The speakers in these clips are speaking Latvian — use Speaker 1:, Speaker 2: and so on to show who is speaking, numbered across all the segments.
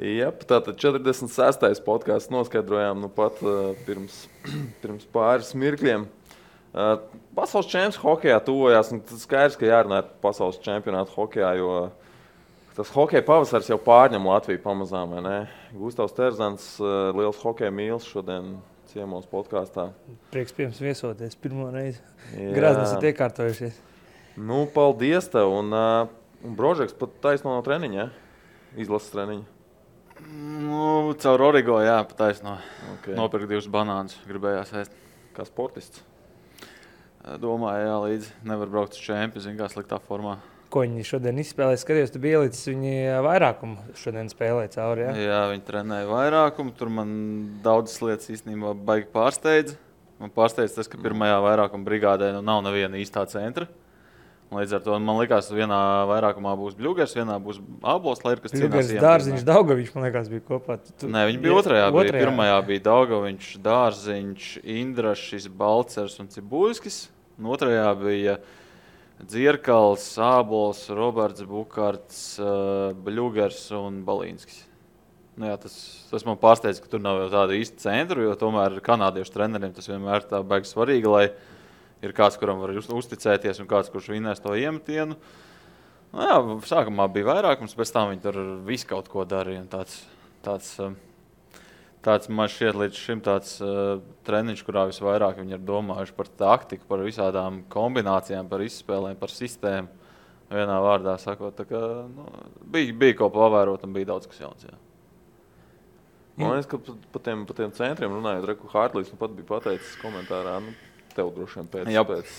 Speaker 1: Jā, tātad 46. podkāsts noskaidrojām pat pirms pāris mirkļiem. Pasaules čempions hokejā tuvojās. Tas skaidrs, ka jārunā par pasaules čempionātu hokejā, jo tas hokeja pavasaris jau pārņem Latviju pamazām. Gustavs Terzans, liels hokeja mīlis šodien ciemos podkāstā.
Speaker 2: Prieks pie jums viesoties pirmo reizi. Grāznes ir iekārtojušies.
Speaker 1: Nu, paldies tev. Un Brožeks pat taisno no treniņa, izlases treniņa.
Speaker 3: Nu, caur Origo, jā, pataisno. Okay. Nopirkt 2 banānus, gribējās ēst.
Speaker 1: Kā sportists?
Speaker 3: Domāju, jā, līdzi nevar braukt uz čempi, zin kā sliktā formā.
Speaker 2: Ko viņi šodien izspēlēja? Skatījos, tu biji ielicis viņi vairākumu šodien spēlēja cauri, jā?
Speaker 3: Jā, viņi trenēja vairākumu. Tur man daudzas lietas īstenībā baigi pārsteidz. Man pārsteidz tas, ka pirmajā vairākuma brigādē nav neviena īstā centra. Līdz ar to man likās, ka vienā vairākumā būs Bļugers, vienā būs Ābols, lai ir kas cīnās.
Speaker 2: Bļugers, Dārziņš, Daugaviņš, man liekas, bija kopā.
Speaker 3: Nē, viņi bija otrajā. Pirmajā bija Daugaviņš, Dārziņš, Indrašs, Balcers un Cibuļskis. Un otrajā bija Dzierkals, Ābols, Roberts, Bukarts, Bļugers un Balīnskis. Nu jā, tas man pārsteidz, ka tur nav jau tāda īsta centra, jo tomēr kanādiešu treneriem tas vienmēr tā baigi svarīgi, lai ir kāds, kuram var uzticēties un kāds, kurš vinnēs to iemetienu. Nu jā, sākumā bija vairākums, pēc tam viņi tur visu kaut ko darīja. Tāds man šķiet līdz šim tāds treniņš, kurā visvairāk viņi ir domājuši par taktiku, par visādām kombinācijām, par izspēlēm, par sistēmu. Vienā vārdā sakot, tā kā, bija ko pavērot un bija daudz kas jauns. Jā.
Speaker 1: Man liekas, ka pa tiem centriem runājot, Reku Hārtlīs pat bija pateicis komentārā, tev droši vien pēc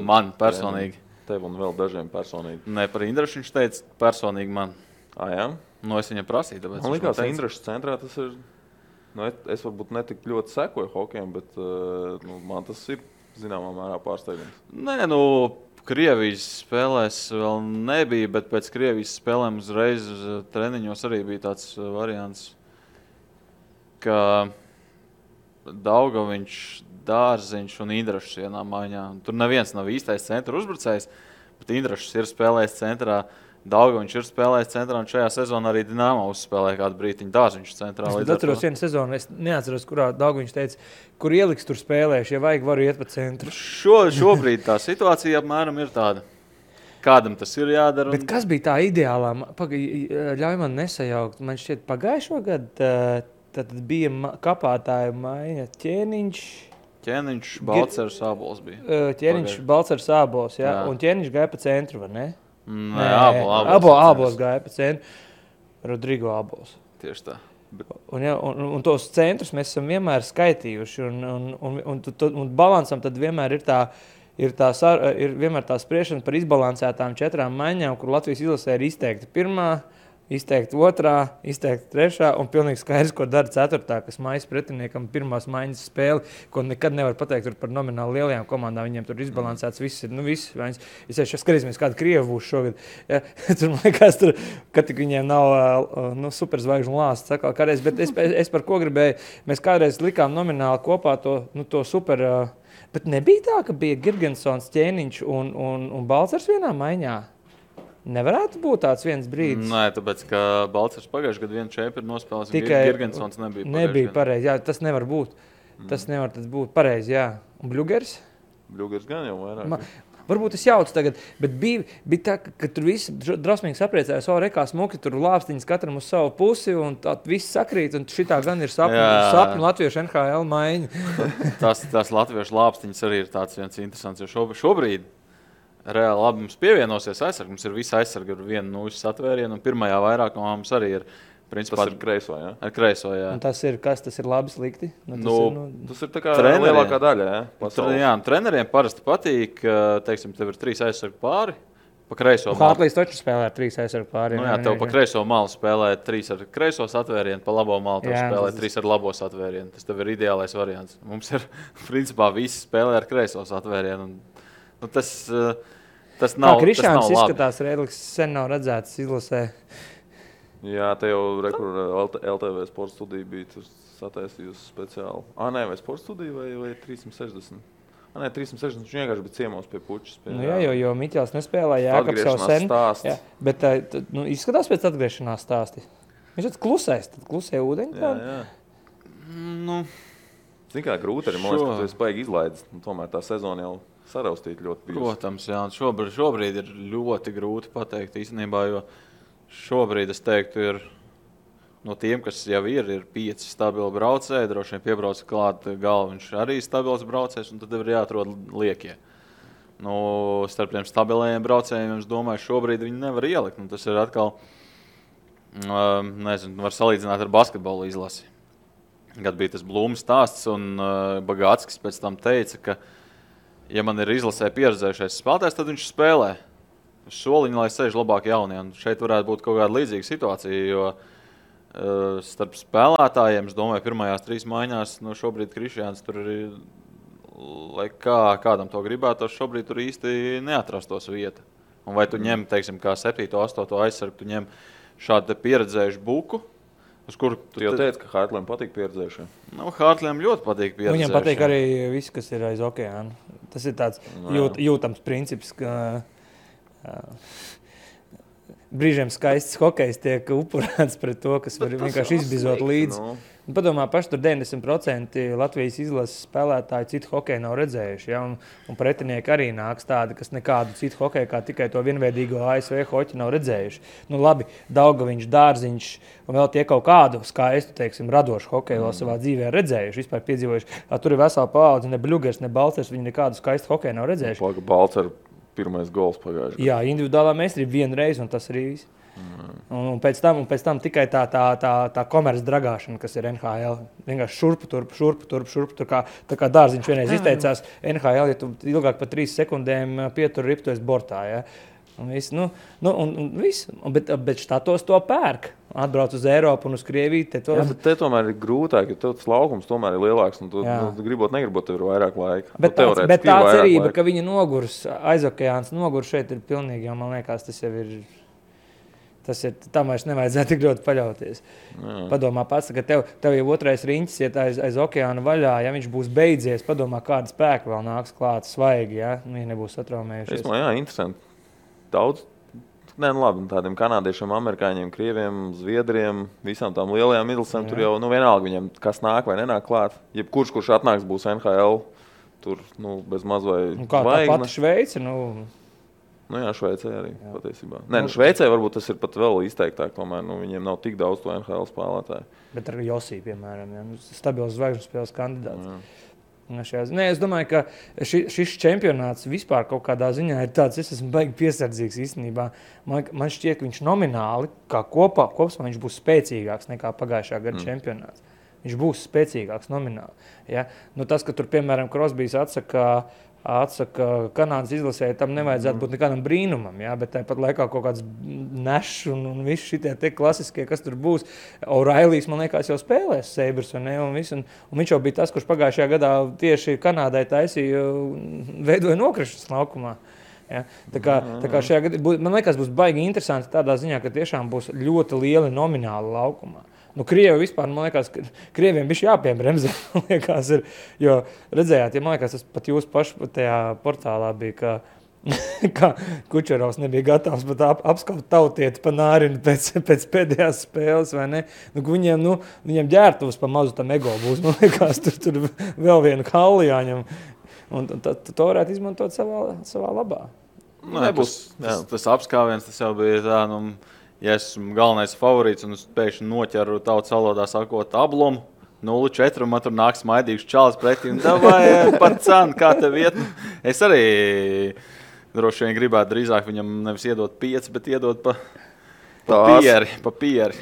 Speaker 3: man personīgi.
Speaker 1: Tev un vēl dažiem personīgi.
Speaker 3: Nē, par Indrašu viņš teica personīgi man.
Speaker 1: Jā?
Speaker 3: Es viņam prasīju, tāpēc
Speaker 1: man likās, Indrašas centrā tas ir, es varbūt netik ļoti sekoju hokejam, bet man tas ir zināmā mērā pārsteigums.
Speaker 3: Nē, Krievijas spēlēs vēl nebija, bet pēc Krievijas spēlēm uzreiz treniņos arī bija tāds variants, ka Daugaviņš, Dārziņš un Indrašs vienā maiņā. Tur neviens nav īstais centra uzbrucējs, bet Indrašs ir spēlējis centrā, Daugaviņš ir spēlējis centrā, un šajā sezonā arī Dinamo uzspēlēja kādu brītiņu Dārziņš centrā.
Speaker 2: Es atceros vienu sezonu, es neatceros, kurā Daugaviņš teica, kur ieliks tur spēlējuši, ja vajag, varu iet pa centru.
Speaker 3: Šobrīd tā situācija apmēram ir tāda. Kādam tas ir jādara.
Speaker 2: Bet kas bija tā ideālā? Ļauj man nesajaukt. Man šķiet pagājušo gadu tad bija kapātāja maiņa
Speaker 3: Ķēniņš, Balcers, Ābols bija.
Speaker 2: Ķēniņš, Balcers, Ābols, jā. Un Ķēniņš gāja pa centru, vai ne?
Speaker 3: Nē,
Speaker 2: Ābols gāja pa centru. Rodrigo Ābols.
Speaker 3: Tieši tā.
Speaker 2: Un tos centrus mēs esam vienmēr skaitījuši. Un balansam tad vienmēr ir vienmēr tā spriešana par izbalansētām 4 maiņām, kur Latvijas izlasē ir izteikti pirmā, izteikti otrā, izteikti trešā un pilnīgi skaidrs, ko dara 4. kas maijas pretiniekam pirmās maiņas spēli, ko nekad nevar pateikt par nomināli lielajām komandām. Viņiem tur izbalansēts viss ir. Es skatīsimies, kāda Krieva būs šogad. Ja, tur, man liekas, ka tik viņiem nav superzvaigžņu lāsts. Kādreiz, bet es par ko gribēju, mēs kādreiz likām nomināli kopā to super. Bet nebija tā, ka bija Girgensons, Ķēniņš un Balcers vienā maiņā. Nevarētu būt tāds viens brīdis.
Speaker 3: Nē, tāpēc, ka Balcers pagājušajā gadā vienu čempionu nospēlēs, un Girgensons
Speaker 2: nebija pareizi. Jā, tas nevar būt. Tas nevar būt pareizi, jā. Un Bļugers?
Speaker 1: Bļugers gan jau vairāk.
Speaker 2: Varbūt es jaucu tagad, bet bija tā, ka tur visi drausmīgi sapriecājās, rekā smuki, tur lāpstiņas katram uz savu pusi, un tā viss sakrīt, un šitā gan ir sapņu latviešu NHL maiņa.
Speaker 3: Tās latviešu lāpstiņas arī ir tāds viens interesants, jo šobrīd reāli labi mums pievienosies aizsargi. Mums ir visa aizsarga ar vienu nūjas atvērienu, un pirmajā vairākumā mums arī ir. Principā,
Speaker 1: tas ir kreiso, jā?
Speaker 3: Ar kreiso, jā.
Speaker 2: Un tas ir kas? Tas ir labi, slikti?
Speaker 1: Tas ir tā kā lielākā daļa, jā?
Speaker 3: Jā, treneriem parasti patīk, teiksim, tev ir 3 aizsargu pāri, pa kreiso malu.
Speaker 2: Hārtlīs taču spēlē ar 3 aizsargu pāri.
Speaker 3: Nu jā, tev pa kreiso malu spēlē 3 ar kreisos atvērienu, pa labo malu tev spēlē 3 ar labos atvērienu. Tas tev ir ideālais variants. Mums ir, principā, visi spēlē ar kreisos atvērienu. Tas nav labi.
Speaker 2: Krišāns izskatās, Rēdlis sen nav redzēts izlasē.
Speaker 1: Jā, te jau LTV sporta studija bija, tu sataisījusi speciāli. Nē, vai sporta studija vai 360? Nē, 360 viņš vienkārši bija ciemos pie pučas.
Speaker 2: Jā, jo Miķels nespēlēja, Jākaps jau sen. Jā, bet izskatās pēc atgriešanās stāsti. Viņš tāds klusais, tad klusē ūdeņi.
Speaker 1: Jā.
Speaker 3: Nu,
Speaker 1: Zini, kā grūti arī, man liekas, ka tu esi baigi izlaidis. Tomēr tā sezona jau saraustīt ļoti bijusi.
Speaker 3: Protams, jā. Šobrīd ir ļoti grūti pateikt īstenībā, jo šobrīd es teiktu, ir no tiem, kas jau ir 5 stabili braucēji, droši vien piebrauc klāt Galviņš arī stabils braucējs, un tad ir jāatrod liekie. Starp tiem stabilējiem braucējiem, es domāju, šobrīd viņi nevar ielikt. Tas ir atkal, var salīdzināt ar basketbolu izlasi. Kad bija tas Blūma stāsts, un Bagātskis pēc tam teica, ka, ja man ir izlasē pieredzējušais spēlētājs, tad viņš spēlē uz soliņa, lai sēž labāk jaunie. Un šeit varētu būt kaut kāda līdzīga situācija, jo starp spēlētājiem, es domāju, pirmajās 3 maiņās, šobrīd Krišjāns tur ir, lai kādam to gribētos, šobrīd tur īsti neatrastos vieta. Un vai tu ņem, teiksim, kā 7. 8. aizsargu, tu ņem šādu pieredzējušu buku, uz kuru
Speaker 1: tu jau teici, ka Hārtlēm patīk pieredzējušie.
Speaker 3: Hārtlēm ļoti patīk pieredzējušie.
Speaker 2: Viņam patīk arī viss, kas ir aiz okeāna. Tas ir tāds jūtams princips, ka brīžiem skaists hokejs tiek upurēts pret to, kas var vienkārši izbizot līdzi. Padomā, paši tur 90% Latvijas izlases spēlētāji citu hokeju nav redzējuši. Ja? Un pretinieki arī nāks tādi, kas nekādu citu hokeju, kā tikai to vienveidīgo ASV hoķi nav redzējuši. Labi, Daugaviņš, Dārziņš un vēl tie kaut kādu skaistu, teiksim, radošu hokeju vēl savā dzīvē redzējuši, vispār piedzīvojuši. Tur ir vesela paudze, ne Bļugers, ne Balcers, viņi nekādu skaistu hokeju nav redzējuši.
Speaker 1: Balcer pirmais gols pagājuši.
Speaker 2: Jā, individuālā meistarība vienreiz, un tas arī viss. Un pēc tam tikai tā komerces dragāšana, kas ir NHL. Vienkārši šurpu. Tā kā Dārziņš vienreiz izteicās, NHL, ja tu ilgāk par 3 sekundēm pietur ripu, tu esi bortā. Ja? Un viss, bet štatos to pērk. Atbrauc uz Eiropu un uz Krieviju.
Speaker 1: Te tomēr ir grūtāk, jo tas laukums tomēr ir lielāks. Un tu negribot, tev ir vairāk laika.
Speaker 2: Bet tā cerība, ka viņa nogurs, aizokeāns nogurs šeit ir pilnīgi, jo man liekas, tas jau ir... Tam vairs nevajadzētu tik ļoti paļauties. Padomā pats, ka tev jau otrais riņķis iet aiz okeāna vaļā, ja viņš būs beidzies, padomā, kāda spēka vēl nāks klāt svaigi, ja viņi nebūs satraumējušies.
Speaker 1: Interesanti. Daudz, labi, tādiem kanādiešiem, amerikāņiem, krieviem, zviedriem, visām tām lielajām midlasēm, tur jau vienalga viņiem, kas nāk vai nenāk klāt. Jebkurš atnāks, būs NHL, tur bez maz vai
Speaker 2: kā tā pati Šveice,
Speaker 1: Šveicē arī patiesībā. Šveicē varbūt tas ir pat vēl izteiktāk, tomēr viņiem nav tik daudz to NHL spēlētāju.
Speaker 2: Bet ar Josī, piemēram, stabils zvaigžņu spēles kandidāts. Es domāju, ka šis čempionāts vispār kaut kādā ziņā ir tāds, es esmu baigi piesardzīgs īstenībā. Man šķiet, ka viņš nomināli, kā kopumā viņš būs spēcīgāks nekā pagājušā gada čempionāts. Viņš būs spēcīgāks nomināli. Ja? Tas, ka tur, piemēram, Crosbys atsaka Kanādas izlasēji, tam nevajadzētu būt nekādam brīnumam, ja? Bet tāpat laikā kaut kāds nešs un visi šitie te klasiskie, kas tur būs. O'Reillys, man liekas, jau spēlēs Sabres, un viņš jau bija tas, kurš pagājušajā gadā tieši Kanādai taisīja, veidoja nokrišanas laukumā. Ja? Tā kā šajā gadā, man liekas, būs baigi interesanti tādā ziņā, ka tiešām būs ļoti lieli nomināli laukumā. Krievi vispār, man liekas, Krieviem bišķi jāpiebremzē, man liekas, jo redzējāt, man liekas, tas pat jūs paši tajā portālā bija, ka Kučerovs nebija gatavs pat apskaut tautieti pa nārinu pēc pēdējās spēles, vai ne? Viņiem ģērtuvs pa mazu tam ego būs, man liekas, tur vēl vienu kalli jāņem, un to varētu izmantot savā labā.
Speaker 3: Tas apskāviens, tas jau bija tā, ja esmu galvenais favorīts un es pēkšņi noķeru tautas valodā sakot ablumu, 0-4, un man tur nāk smaidīgs čalis pretī, un davai par cenu, kā tev iet. Es arī droši vien gribētu drīzāk viņam nevis iedot 5, bet iedot pa pieri.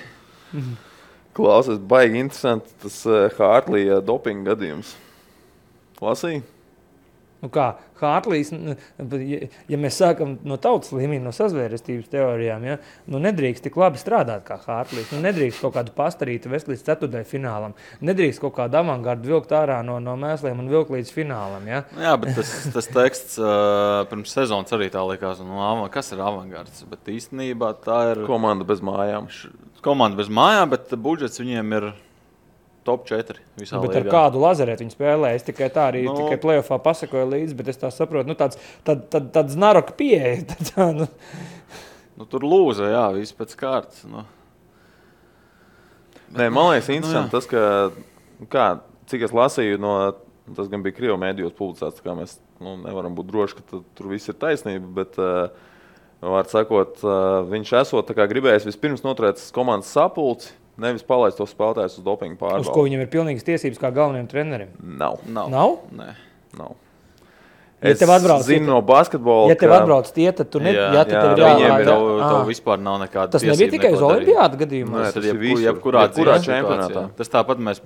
Speaker 1: Klausies, baigi interesanti tas Hārtlija dopinga gadījums. Lasīji?
Speaker 2: Hārtlīs, ja mēs sākam no tautas līmeņa, no sazvērestības teorijām, ja, nedrīkst tik labi strādāt kā Hārtlīs, nedrīkst kaut kādu pastarītu vest līdz 4. finālam, nedrīkst kaut kādu avangardu vilkt ārā no mēsliem un vilkt līdz finālam. Ja.
Speaker 3: Jā, bet tas teksts pirms sezonas arī tā likās, kas ir avangards, bet īstenībā tā ir
Speaker 1: komanda bez mājām.
Speaker 3: Komanda bez mājām, bet budžets viņiem ir top 4 visā līgā.
Speaker 2: Bet ar kādu lazerētu viņi spēlē? Es tikai tā arī tikai playoffā pasakoju līdzi, bet es tā saprotu, tāds naroka pieeja.
Speaker 3: Tur lūza, jā, viss pēc kārtas.
Speaker 1: Nē, man liekas, interesanti tas, ka, cik es lasīju, tas gan bija Krievu mēdījos publicēts, kā mēs nevaram būt droši, ka tur viss ir taisnība, bet, var sakot, viņš esot tā kā gribējis vispirms noturēt komandas sapulci, nevis palaist tos spēlētājus uz dopingu pārbaudi.
Speaker 2: Uz ko viņam ir pilnīgas tiesības kā galvenajam trenerim?
Speaker 1: Nav?
Speaker 3: Nē.
Speaker 1: Nav.
Speaker 2: Ja
Speaker 1: Es zinu no basketbola,
Speaker 2: ja tev atbrauc tie, tad tu
Speaker 3: Tev vispār nav nekāda
Speaker 2: tas nebija tikai uz olimpiādu gadījumā.
Speaker 1: Nē,
Speaker 3: Tad
Speaker 1: tas ir visur.
Speaker 3: jebkurā
Speaker 1: čempionātā.
Speaker 3: Tas tāpat mēs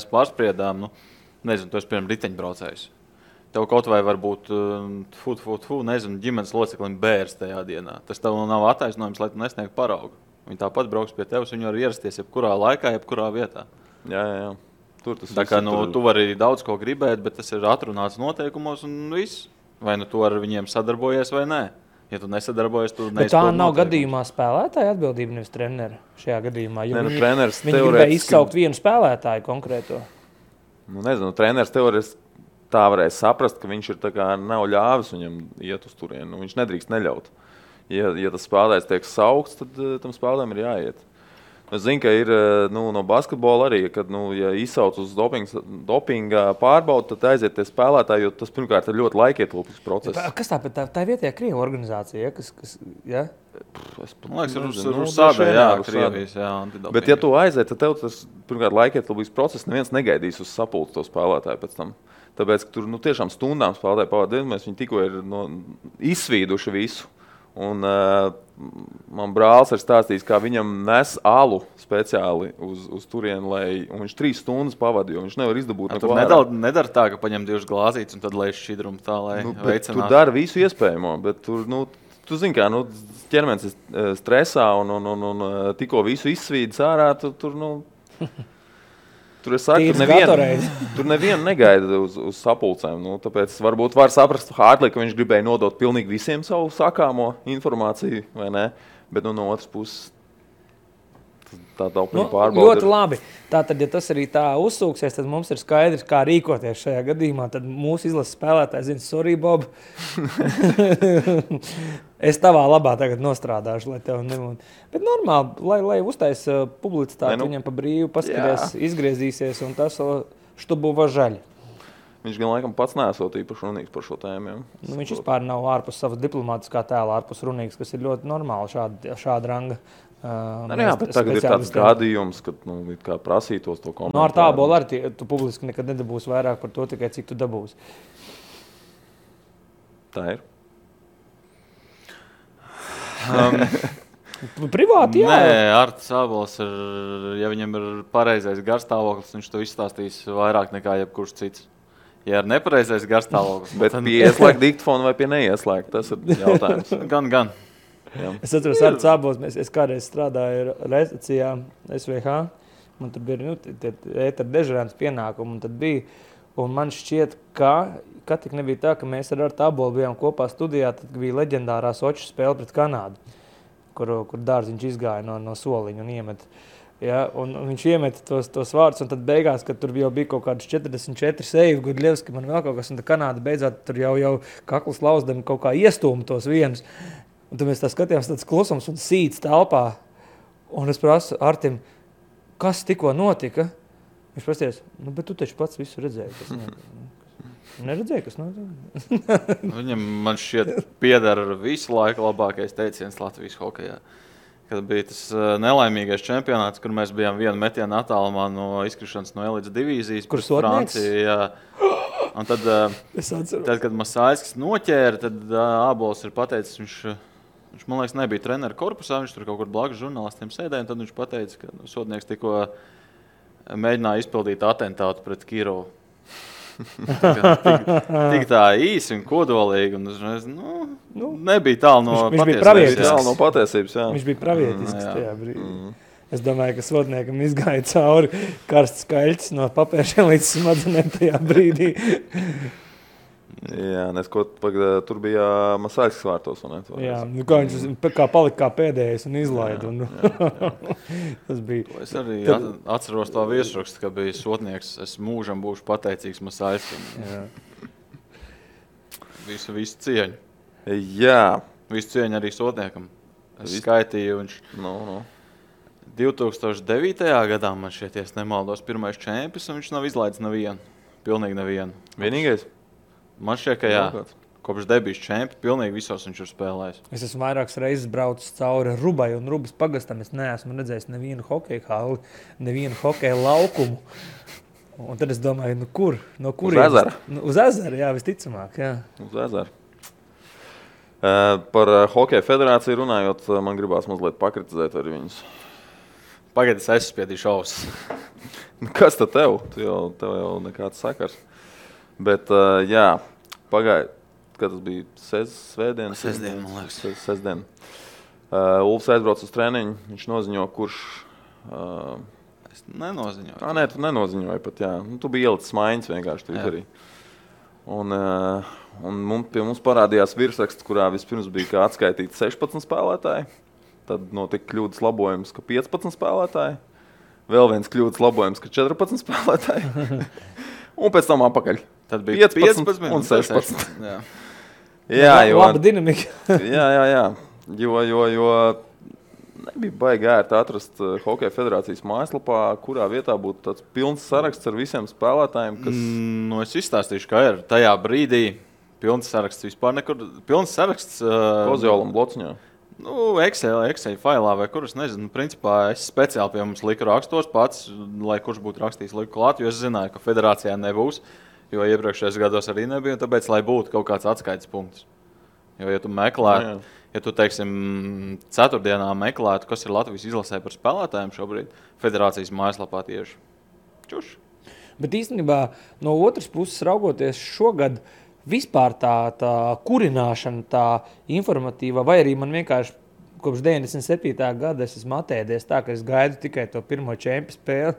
Speaker 3: pārspriedām, nezinu, tu esi piemēram riteņbraucējs. Tev kaut vai varbūt nezinu, ģimenes loceklim bērs tajā dienā. Tas tev nav attaisnojums, lai tu nesniegtu paraugu. Viņi tāpat brauks pie tevis, viņi var ierasties jebkurā laikā, jebkurā vietā.
Speaker 1: Jā.
Speaker 3: Tā kā tu vari daudz ko gribēt, bet tas ir atrunāts noteikumos un viss. Vai tu ar viņiem sadarbojies vai nē. Ja tu nesadarbojies, tu neizpildi.
Speaker 2: Tā nav gadījumā spēlētāja atbildība, nevis trenera šajā gadījumā.
Speaker 1: Viņi
Speaker 2: gribēja izsaukt vienu spēlētāju konkrēto.
Speaker 1: Nezinu, treneris teorētiski tā varēja saprast, ka viņš ir tā kā nav ļāvis viņam iet uz turienu. Viņš nedrīkst neļaut. Ja tas spēlētājs tiek saukts, tad tam spēlētājiem ir jāiet. Es zinu, ka ir no basketbola arī, kad ja izsauc uz dopinga pārbaudi, tad aiziet tie spēlētāji, jo tas pirmkārt ir ļoti laikietilpīgs process.
Speaker 2: Kas tā vietējā Krievu organizācija? Ja?
Speaker 3: Man liekas, ir sādē, Krievijas, antidopinga.
Speaker 1: Bet ja tu aiziet, tad tev tas pirmkārt laikietilpīgs process, neviens negaidīs uz sapulci to spēlētāju pēc tam. Tāpēc, ka tur tiešām stundām spēlētāji pavadījumais, viņi tikko ir izsvīduši visu. Un man brālis ir stāstījis, kā viņam nes alu speciāli uz turienu, un viņš 3 stundas pavadīja, jo viņš nevar izdabūt neko ārā.
Speaker 3: Nedara tā, ka paņem 2 glāzītes un tad lēš šķidrumu tā, lai veicinātu.
Speaker 1: Tu dari visu iespējamo, bet tur, tu zini kā, ķermenis ir stresā un tikko visu izsvīdis ārā, Tur es saku, tur nevienu negaida uz sapulcēm. Tāpēc varbūt var saprast Hārtlī, ka viņš gribēja nodot pilnīgi visiem savu sakāmo informāciju, vai ne? Bet no otras puses tā dopinga pārbaude
Speaker 2: ļoti labi. Tātad, ja tas arī tā uzsūksies, tad mums ir skaidrs, kā rīkoties šajā gadījumā. Tad mūsu izlases spēlētāji zina, sorry, Bob. Es tavā labā tagad nostrādāšu, lai tev nebūtu. Bet normāli, lai uztaisa publicitāti viņam pa brīvu, paskatās, izgriezīsies un tas štubu važaļ.
Speaker 1: Viņš gan laikam pats neesot īpaši runīgs par šo tēmu.
Speaker 2: Viņš vispār nav ārpus savas diplomātiskā tēla, ārpus runīgs, kas ir ļoti normāli šāda ranga.
Speaker 1: Bet tagad ir tāds gadījums, kad kā prasītos to komentāru.
Speaker 2: Ar tābolu arī tu publiski nekad nedabūsi vairāk par to, tikai cik tu dabūsi.
Speaker 1: Tā ir.
Speaker 2: Privāti, jā.
Speaker 3: Nē, Artis Ābols ir, ja viņam ir pareizais garstāvoklis, viņš to izstāstīs vairāk nekā jebkurš cits. Ja ir nepareizais garstāvoklis.
Speaker 1: Bet pie ieslēgt diktofonu vai pie neieslēgt, tas ir jautājums.
Speaker 3: Gan.
Speaker 2: Jā. Es atceros, Artis Ābols, es kādreiz strādāju redakcijā SVH, man tur bija ētera dežurēns pienākumu, un tad bija, un man šķiet, ka tik nebija tā, ka mēs ar Artu Ābolu bijām kopā studijā, tad bija leģendārā Soču spēle pret Kanādu, kur Dārziņš izgāja no soliņa un iemet. Ja, un viņš iemeta tos vārdus, un tad beigās, kad tur jau bija kaut kāds 44 seivi, Gudļevski, man vēl kaut kas, un tad Kanāda beidzot tur jau kakls lauzdami kaut kā iestūma tos vienus. Un tad mēs tā skatījāmies tāds klusums un sīts telpā. Un es prasu Artim, kas tikko notika? Viņš prasties, bet tu taču pats visu redzēji. Neredzēji, kas notika?
Speaker 3: Viņam, man šķiet, piedara visu laiku labākais teiciens Latvijas hokejā. Kad bija tas nelaimīgais čempionāts, kur mēs bijām vienu metienu attālumā no izkrišanas no elites divīzijas.
Speaker 2: Kur Sotnieks?
Speaker 3: Francija, un tad, kad Masāļskis noķēra, tad Ābols ir pateicis, viņš, man liekas, nebija trenera korpusā, viņš tur kaut kur blakus žurnālistiem sēdēja, un tad viņš pateica, ka Sotnieks tikko mēģināja izpildīt atentātu pret Kirovu. Tik tā īsi un kodolīgi, un nebija tālu no
Speaker 1: patiesības.
Speaker 2: Viņš bija pravietisks tajā brīdī. Es domāju, ka Sotniekam izgāja cauri karsts skaļķis no papēršiem līdz smadzenēm tajā brīdī.
Speaker 1: Jā, tur bija Masāļskis vārtos.
Speaker 2: Jā, kā viņš palika kā pēdējais un izlaida. Tas bija.
Speaker 3: Es arī atceros tā viesrakstu, ka bija Sotnieks. Es mūžam būšu pateicīgs Masāļskim. Visu cieņu.
Speaker 1: Jā.
Speaker 3: Visu cieņu arī Sotniekam. Es skaitīju, viņš... 2009. gadā man šķiet, ja nemaldos, pirmais čempions, un viņš nav izlaidis nevienu. Pilnīgi nevienu.
Speaker 1: Vienīgais?
Speaker 3: Man šķiet, ka jā. Kopš debijas čempions, pilnīgi visos viņš ir spēlējis.
Speaker 2: Es esmu vairākas reizes braucis cauri Rubai un Rubas pagastam. Es neesmu redzējis nevienu hokeja halli, nevienu hokeja laukumu. Un tad es domāju, nu kur? No kurienes?
Speaker 1: Uz ezera?
Speaker 2: Uz ezera, jā, visticamāk, jā.
Speaker 1: Uz ezera. Par Hokeja federāciju runājot, man gribās mazliet pakritizēt arī viņus.
Speaker 3: Pagaid, es aizspiedīšu ausis.
Speaker 1: Kas tad tev? Tev jau nekāds sakars. Bet, jā, pagaid, kad tas bija svētdien?
Speaker 3: Sestdien, man liekas.
Speaker 1: Sestdien. Ulfs aizbrauc uz treniņu, viņš noziņo, kurš...
Speaker 3: Es nenoziņoju.
Speaker 1: Nē, tu nenoziņoji pat, jā. Tu biji ielicis maiņas vienkārši Twitterī. Un pie mums parādījās virsraksts, kurā vispirms bija kā atskaitīti 16 spēlētāji. Tad notika kļūdas labojums, ka 15 spēlētāji. Vēl viens kļūdas labojums, ka 14 spēlētāji. Un pēc tam apakaļ.
Speaker 3: Tad bija 15
Speaker 1: un 16.
Speaker 2: Jā, laba dinamika.
Speaker 1: jā. Jo nebija baigi ērti atrast Hokeja federācijas mājaslapā, kurā vietā būtu tāds pilns saraksts ar visiem spēlētājiem, kas...
Speaker 3: Es izstāstīšu, kā ir. Tajā brīdī pilns saraksts vispār nekur... Pilns saraksts...
Speaker 1: Kozjolam blociņā.
Speaker 3: Excel failā vai kur, es nezinu. Principā es speciāli pie mums liku rakstos pats, lai kurš būtu rakstījis liku klāt, jo es zināju, ka federācijā nebūs, jo iepriekšējos gados arī nebija, un tāpēc, lai būtu kaut kāds atskaites punkts. Jo, ja tu meklētu... Ja tu, teiksim, ceturtdienā meklētu, kas ir Latvijas izlasē par spēlētājiem šobrīd, federācijas mājaslapā tieši čuši.
Speaker 2: Bet īstenībā no otras puses raugoties šogad vispār tā kurināšana, tā informatīva, vai arī man vienkārši kopš 97. gada es esmu atēdies tā, ka es gaidu tikai to pirmo čempionu spēli.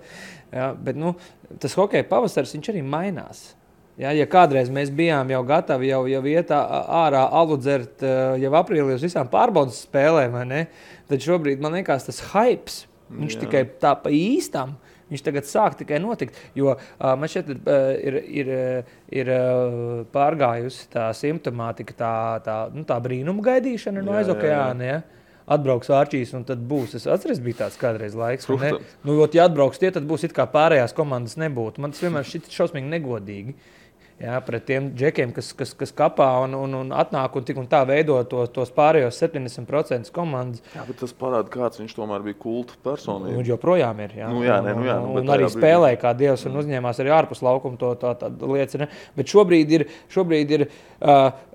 Speaker 2: Ja, bet tas hokeja pavasaris, viņš arī mainās. Ja kādreiz mēs bijām jau gatavi jau iet ārā alu dzert jau aprīlī uz visām pārbaudas spēlēm, vai ne? Tad šobrīd man liekas tas hypes, viņš tikai tā pa īstam, viņš tagad sāk tikai notikt, jo man šeit ir pārgājusi tā simptomātika, tā brīnuma gaidīšana no aizokeāna, ja? Atbrauks Ārčīs un tad būs. Es atceries, bija tāds kādreiz laiks, vai ne? Ja atbrauks tie, tad būs it kā pārējās komandas nebūtu. Man tas vienmēr šķiet šausmīgi negodīgi. Jā, pret tiem džekiem, kas kapā un atnāk un tik un tā veido tos pārējos 70% komandas.
Speaker 1: Jā, bet tas parāda, kāds viņš tomēr bija kulta personība.
Speaker 2: Un joprojām ir, jā.
Speaker 1: Un
Speaker 2: arī spēlēja kā dievs un uzņēmās arī ārpus laukuma tā liecina. Bet šobrīd ir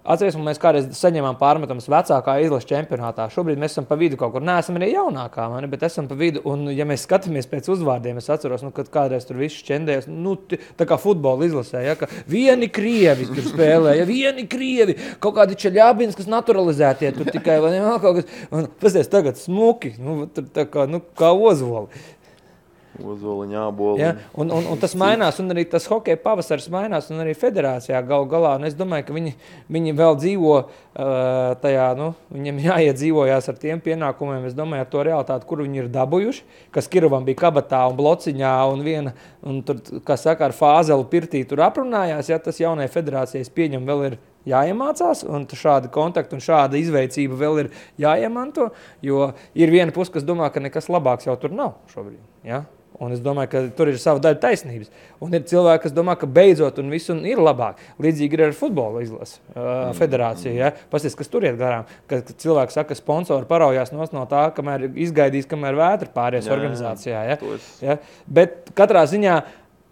Speaker 2: atceries, mēs kādreiz saņēmām pārmetumus vecākā izlases čempionātā. Šobrīd mēs esam pa vidu kaut kur. Neesam arī jaunākā, bet esam pa vidu. Un, ja mēs skatāmies pēc uzvārdiem, es atceros, kad kādreiz tur viss šķendējas, tā kā futbola izlasē, ja, ka vieni krievi tur spēlē, ja vieni krievi, kaut kādi Čeļābins, kas naturalizētie tur tikai, vai ne, kaut kas. Un pasties tagad smuki, tā kā ozoli.
Speaker 1: Ozoliņā, āboli.
Speaker 2: Ja, un tas mainās, un arī tas hokeja pavasaris mainās, un arī federācijā galā. Un es domāju, ka viņi vēl dzīvo tajā, viņiem jāiedzīvojās ar tiem pienākumiem, es domāju, ar to realitāti, kur viņi ir dabūjuši, kas Kirovam bija kabatā un blociņā, un tur, kā saka, ar Fāzelu pirtī tur aprunājās, ja tas jaunai federācijas pieņem vēl ir jāiemācās, un šādi kontakti un šāda izveicība vēl ir jāiemanto, jo ir viena puse, kas domā, ka nekas labāks jau tur nav šobrīd, ja? Un es domāju, ka tur ir sava daļa taisnības. Un ir cilvēki, kas domā, ka beidzot un viss ir labāk. Līdzīgi ir ar futbola izlasi federāciju. Ja? Pasties, kas tur iet garām. Kad cilvēki saka, ka sponsori paraujās no tā, kamēr izgaidīs, kamēr vētra pāries organizācijā. Ja? Ja? Bet katrā ziņā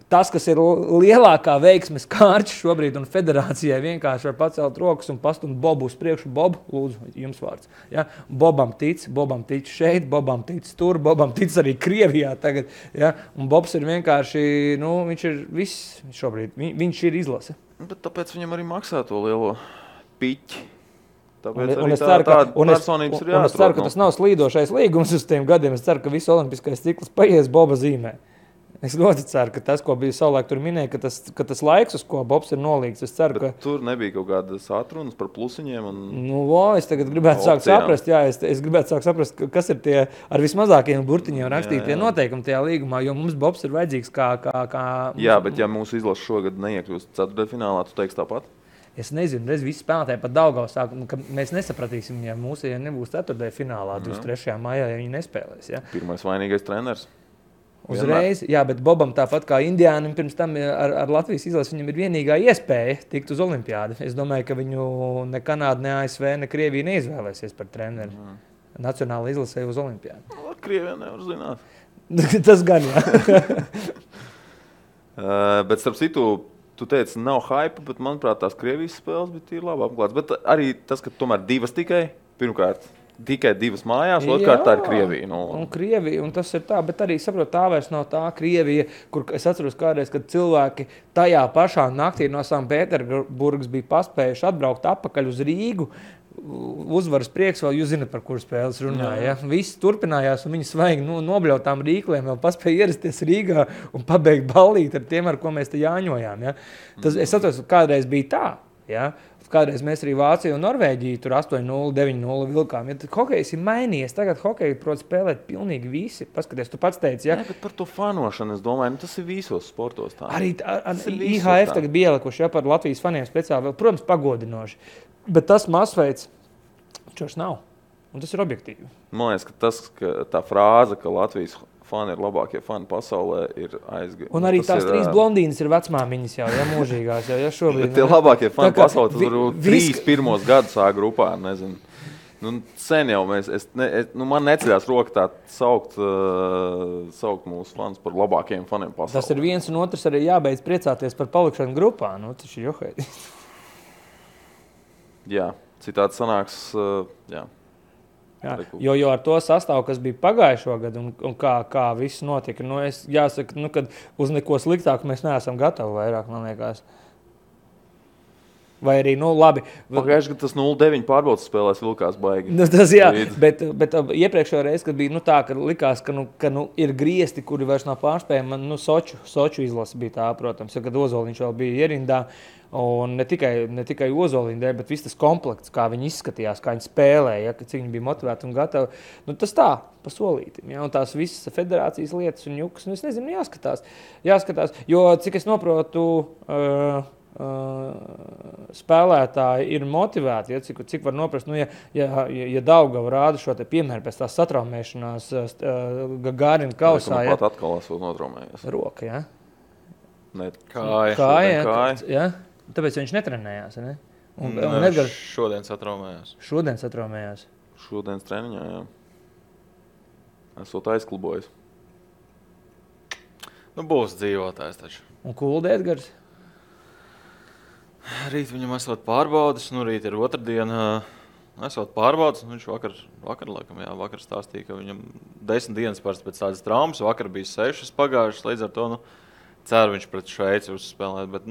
Speaker 2: tas, kas ir lielākā veiksmes kārķis šobrīd un federācijai vienkārši var pacelt rokas un pastumt Bobu uz priekšu. Bob, lūdzu, jums vārds. Ja? Bobam tic šeit, Bobam tic tur, Bobam tic arī Krievijā tagad. Ja? Un Bobs ir vienkārši, viņš ir viss šobrīd, viņš ir izlase.
Speaker 1: Bet tāpēc viņam arī maksā to lielo piķi. Tāpēc
Speaker 2: un
Speaker 1: arī
Speaker 2: es ceru, ka,
Speaker 1: personības ir jāatrod.
Speaker 2: Un es ceru, ka tas nav slīdošais līgums uz tiem gadiem. Es ceru, ka viss olimpiskais cikls paies Boba zīmē. Es ļoti ceru, ka tas, ko bija savulaik tur minēja, ka tas laiks, uz ko Bobs ir nolīgts, es ceru, ka...
Speaker 1: Tur nebija kaut kādas atrunas par plusiņiem un...
Speaker 2: Es tagad gribētu sākt saprast, es gribētu sākt saprast, kas ir tie ar vismazākajiem burtiņiem rakstītie noteikumi tajā līgumā, jo mums Bobs ir vajadzīgs kā...
Speaker 1: Jā, bet ja mūsu izlase šogad neiekļūst ceturtdaļfinālā, tu teiksi tāpat?
Speaker 2: Es nezinu, visi spēlētāji pat Daugavas sāk, ka mēs nesapratīsim, ja mūsu nebūs 4. finālā 23. maijā, ja viņi nespēlēs. Ja?
Speaker 1: Pirmais vainīgais treneris.
Speaker 2: Uzreiz, jā, bet Bobam tāpat kā Indiānam pirms tam ar Latvijas izlasi, viņam ir vienīgā iespēja tikt uz olimpiādi. Es domāju, ka viņu ne Kanāda, ne ASV, ne Krievija neizvēlēsies par treneri. Nacionāla izlasē uz olimpiādi.
Speaker 1: No, Krievijā nevar zināt.
Speaker 2: Tas gan, jā.
Speaker 1: Bet starp citu, tu teici, nav hype, bet manuprāt tās Krievijas spēles bija labi apklāts. Bet arī tas, ka tomēr 2 tikai, pirmkārt, tikai 2 mājās, otrkārt tā ir Krievija.
Speaker 2: Un Krievija, un tas ir tā, bet arī saprot, tā vairs nav tā Krievija, kur es atceros kādreiz, kad cilvēki tajā pašā naktī no Sanktpēterburgas bija paspējuši atbraukt atpakaļ uz Rīgu, uzvaras prieks vēl, jūs zināt, par kuru spēles runāja. Ja? Viss turpinājās, un viņi svaigi nobļautām rīkliem, vēl paspēja ierasties Rīgā un pabeigt ballīt ar tiem, ar ko mēs te jāņojām. Ja? Tas, es atceros, kādreiz bija tā. Ja? Kādreiz mēs arī Vāciju un Norvēģiju tur 8-0, 9-0 vilkām. Ja hokejs ir mainījies, tagad hokeju prot spēlēt pilnīgi visi. Paskaties, tu pats teici, ja?
Speaker 1: Nē, bet par to fanošanu es domāju, tas ir visos sportos tā.
Speaker 2: Arī IHF tagad bija ielikuši, ja, par Latvijas faniem speciāli, protams, pagodinoši. Bet tas masveids, čos nav. Un tas ir objektīvi.
Speaker 1: Man liekas, ka tā frāze, ka Latvijas fani ir labākie fani pasaulē, ir aizgājuši.
Speaker 2: Un arī tās 3 blondīnas ir vecmāmiņas jau, ja mūžīgās. Ja šobrīd,
Speaker 1: bet tie labākie fani pasaulē, tas varbūt 3 pirmos gadus A grupā, nezinu. Nu, sen jau man neceļās roka tā saukt mūsu fans par labākajiem faniem pasaulē.
Speaker 2: Tas ir viens un otrs arī jābeidz priecāties par palikšanu grupā. Nu, tas ir johēdi.
Speaker 1: Jā, citādi sanāks, jā.
Speaker 2: Jā, jo ar to sastāvu, kas bija pagājušo gadu un kā viss notika, es jāsaka, kad uz neko sliktāku mēs neesam gatavi vairāk, man liekas. Vai arī, labi.
Speaker 1: Pagājuši, ka tas 0-9 pārbaudas spēlēs vilkās baigi.
Speaker 2: Tas jā, bet iepriekšējā reize, kad bija tā, ka likās, ka ir griesti, kuri vairs nav pārspējami, Soču izlase bija tā, protams, kad Ozoliņš vēl bija ierindā. Un ne tikai Ozoliņa dēļ, bet viss tas komplekts, kā viņi izskatījās, kā viņi spēlēja, cik viņi bija motivēti un gatavi. Tas tā, pa solītim. Ja? Un tās visas federācijas lietas un jukas, es nezinu, jāskatās. Jo, cik es noprotu, spēlētāji ir motivēti, ja? cik var noprast, ja Daugava rāda šo te piemēru pēc tās satraumēšanās Gagārina kausā.
Speaker 1: Pat atkal esot notraumējies.
Speaker 2: Roka, ja?
Speaker 1: Kāja.
Speaker 2: Ja? Tāpēc viņš netrenējās, ne? Un
Speaker 3: Edgars šodien satraumējās.
Speaker 1: Šodienas treniņā, jā. Esot aizklubojis.
Speaker 3: Būs dzīvotājs taču.
Speaker 2: Un Kulda Edgars?
Speaker 3: Rīt viņam esot pārbaudas, rīt ir otrdiena. Esot pārbaudas, viņš vakar stāstīja, ka viņam 10 dienas pēc tādas traumas, vakar bija 6 pagājušas, līdz ar to, ceru viņš pret Šveici uzspēlēt, bet,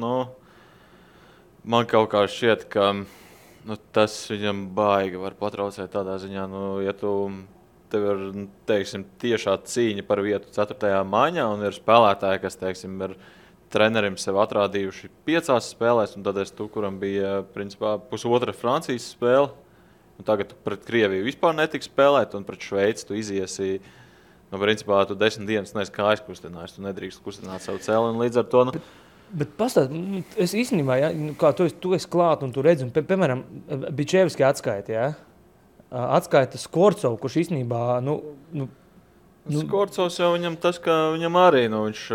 Speaker 3: man kaut kā šķiet, ka tas viņam baigi var patraucēt tādā ziņā, ja tev ir, teiksim, tiešā cīņa par vietu 4. maiņā un ir spēlētāji, kas, teiksim, ir trenerim sev atrādījuši 5 spēlēs, un tad kuram bija, principā, pusotra Francijas spēle, un tagad pret Krieviju vispār netika spēlēt, un pret Šveici tu iziesi. Principā, tu 10 dienas neesi kājas kustinājis, tu nedrīkst kustināt savu cēli, un līdz ar to...
Speaker 2: Bet pastāst, es īstenībā, ja, kā tu esi klāt un tu redzi, un, piemēram, Bičevski atskaita, ja? Atskaita Skorcovu, kurš īstenībā,
Speaker 3: Skorcovs jau viņam tas, ka viņam arī, viņš...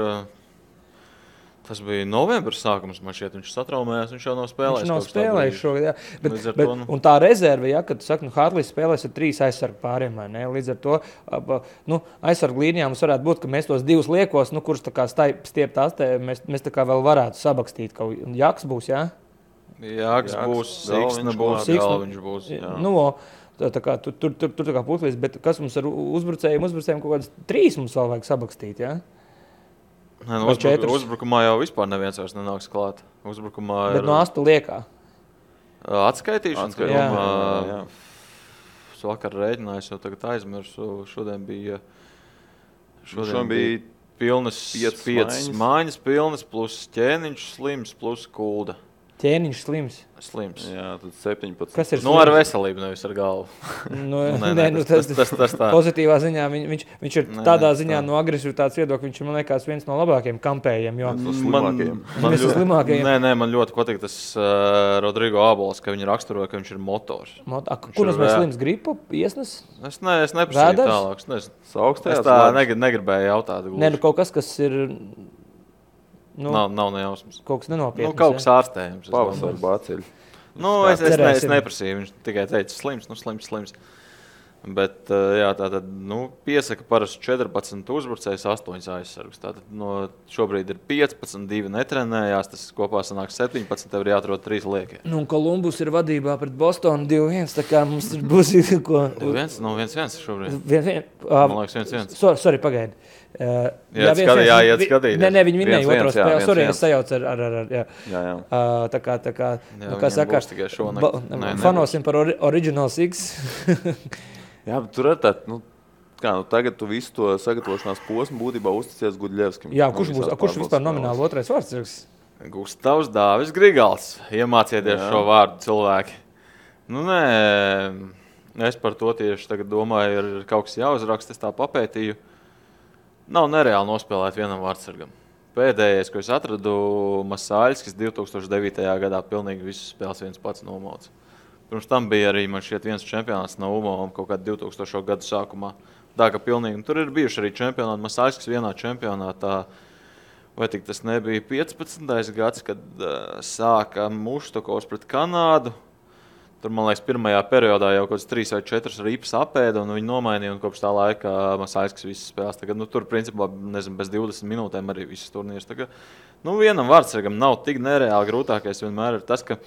Speaker 3: Tas bija novembris sākums, man šķiet, viņš satraumējās, viņš jau nav spēlējis.
Speaker 2: Viņš nav spēlējis šogad, jā. Bet, un tā rezerve, ja, kad tu saki, Hartlīs spēlēs ar 3 aizsargu pāriem, vai ne? Līdz ar to, aizsargu līnijā mums varētu būt, ka mēs tos 2 liekos, kurus tā kā stiept astē, mēs tā kā vēl varētu sabakstīt. Jaks būs, jā?
Speaker 3: Jaks būs, Siksna būs, Galviņš būs, jā.
Speaker 2: Tā kā tur tā kā putlīs, bet kas mums ar uzbrucējiem kaut kādas 3 mums vēl vajag sabakstīt, jā?
Speaker 3: Uzbrukumā jau vispār neviens vairs nenāks klāt. Uzbrukumā ir...
Speaker 2: Bet no 8 liekā?
Speaker 3: Atskaitīšanas.
Speaker 2: Jā.
Speaker 3: Es vakar rēķinājos, jau tagad aizmirsu. Šodien bija
Speaker 1: pilnas
Speaker 3: 5 mājas pilnas, plus ķēniņš slims, plus Kulda.
Speaker 2: Ķēniņš slims.
Speaker 1: Jā, tad 17.
Speaker 2: Kas ir slims?
Speaker 3: Nu, ar veselību, nevis ar galvu.
Speaker 2: Tas
Speaker 3: tā.
Speaker 2: Pozitīvā ziņā viņš ir tādā ziņā no agresivitātes viedokļa, viņš ir, man liekas, viens no labākajiem kampējiem.
Speaker 3: Man ļoti patīk tas Rodrigo Abols, ka viņi raksturoja, ka viņš ir motors.
Speaker 2: Kur mēs slims gripu iesnes?
Speaker 3: Es neprasīju tālāk. Es tā negribēju jautāt.
Speaker 2: Nē, kaut kas ir...
Speaker 3: Nav nejausmas.
Speaker 2: Kaut kas nenopietns.
Speaker 3: Kaut kas ārstējams.
Speaker 1: Pavasara bāceļi.
Speaker 3: Es neprasīju. Viņš tikai teica slims. Bet, jā, tātad, piesaka parasti 14 uzbrucējus, 8 aizsargus. Tātad, šobrīd ir 15, 2 netrenējās, tas kopā sanāk 17, tev ir jāatrod 3 liekie.
Speaker 2: Kolumbus ir vadībā pret Bostonu 2-1, tā kā mums būs ko...
Speaker 3: 2-1? Nav 1-1 šobrīd.
Speaker 2: Man
Speaker 3: liekas 1-1.
Speaker 2: Sorry, pagaidi.
Speaker 3: Jāiet skatīt.
Speaker 2: Nē, viņi minēja otro spēli. Sorry, es sajaucu ar
Speaker 1: jā.
Speaker 2: Tā kā,
Speaker 3: saka,
Speaker 2: fanosim par Original Six.
Speaker 1: Jā, bet tur ir tā, tagad tu visu to sagatavošanās posmu būtībā uzticies Gudļevskim.
Speaker 2: Jā, kurš vispār nomināli otrais vārds?
Speaker 3: Gustavs Dāvis Grigals. Iemācieties šo vārdu cilvēki. Nē, es par to tieši tagad domāju, ir kaut kas jāuzraksta, es tā papētīju. Nav nereāli nospēlēt vienam vārdsargam. Pēdējais, ko es atradu, Masāļskis 2009. Gadā pilnīgi visus spēles viens pats nomauca. Pirms tam bija arī man šķiet viens čempionāts no UMO kaut kādā 2000. Gadu sākumā. Tā ka pilnīgi. Tur ir bijuši arī čempionāti. Masāļskis vienā čempionātā, vai tik tas nebija 15. gads, kad sāka Muštokovs pret Kanādu. Tur, man liekas, pirmajā periodā jau kaut kāds 3 vai 4 ripas apēda, un viņi nomainīja, un kopš tā laika Masāļskis visas spēles. Tagad, tur, principā, bez 20 minūtēm arī visas turnīrs. Tagad, vienam vārdsargam nav tik nereāli grūtākais vienmēr ir tas, ka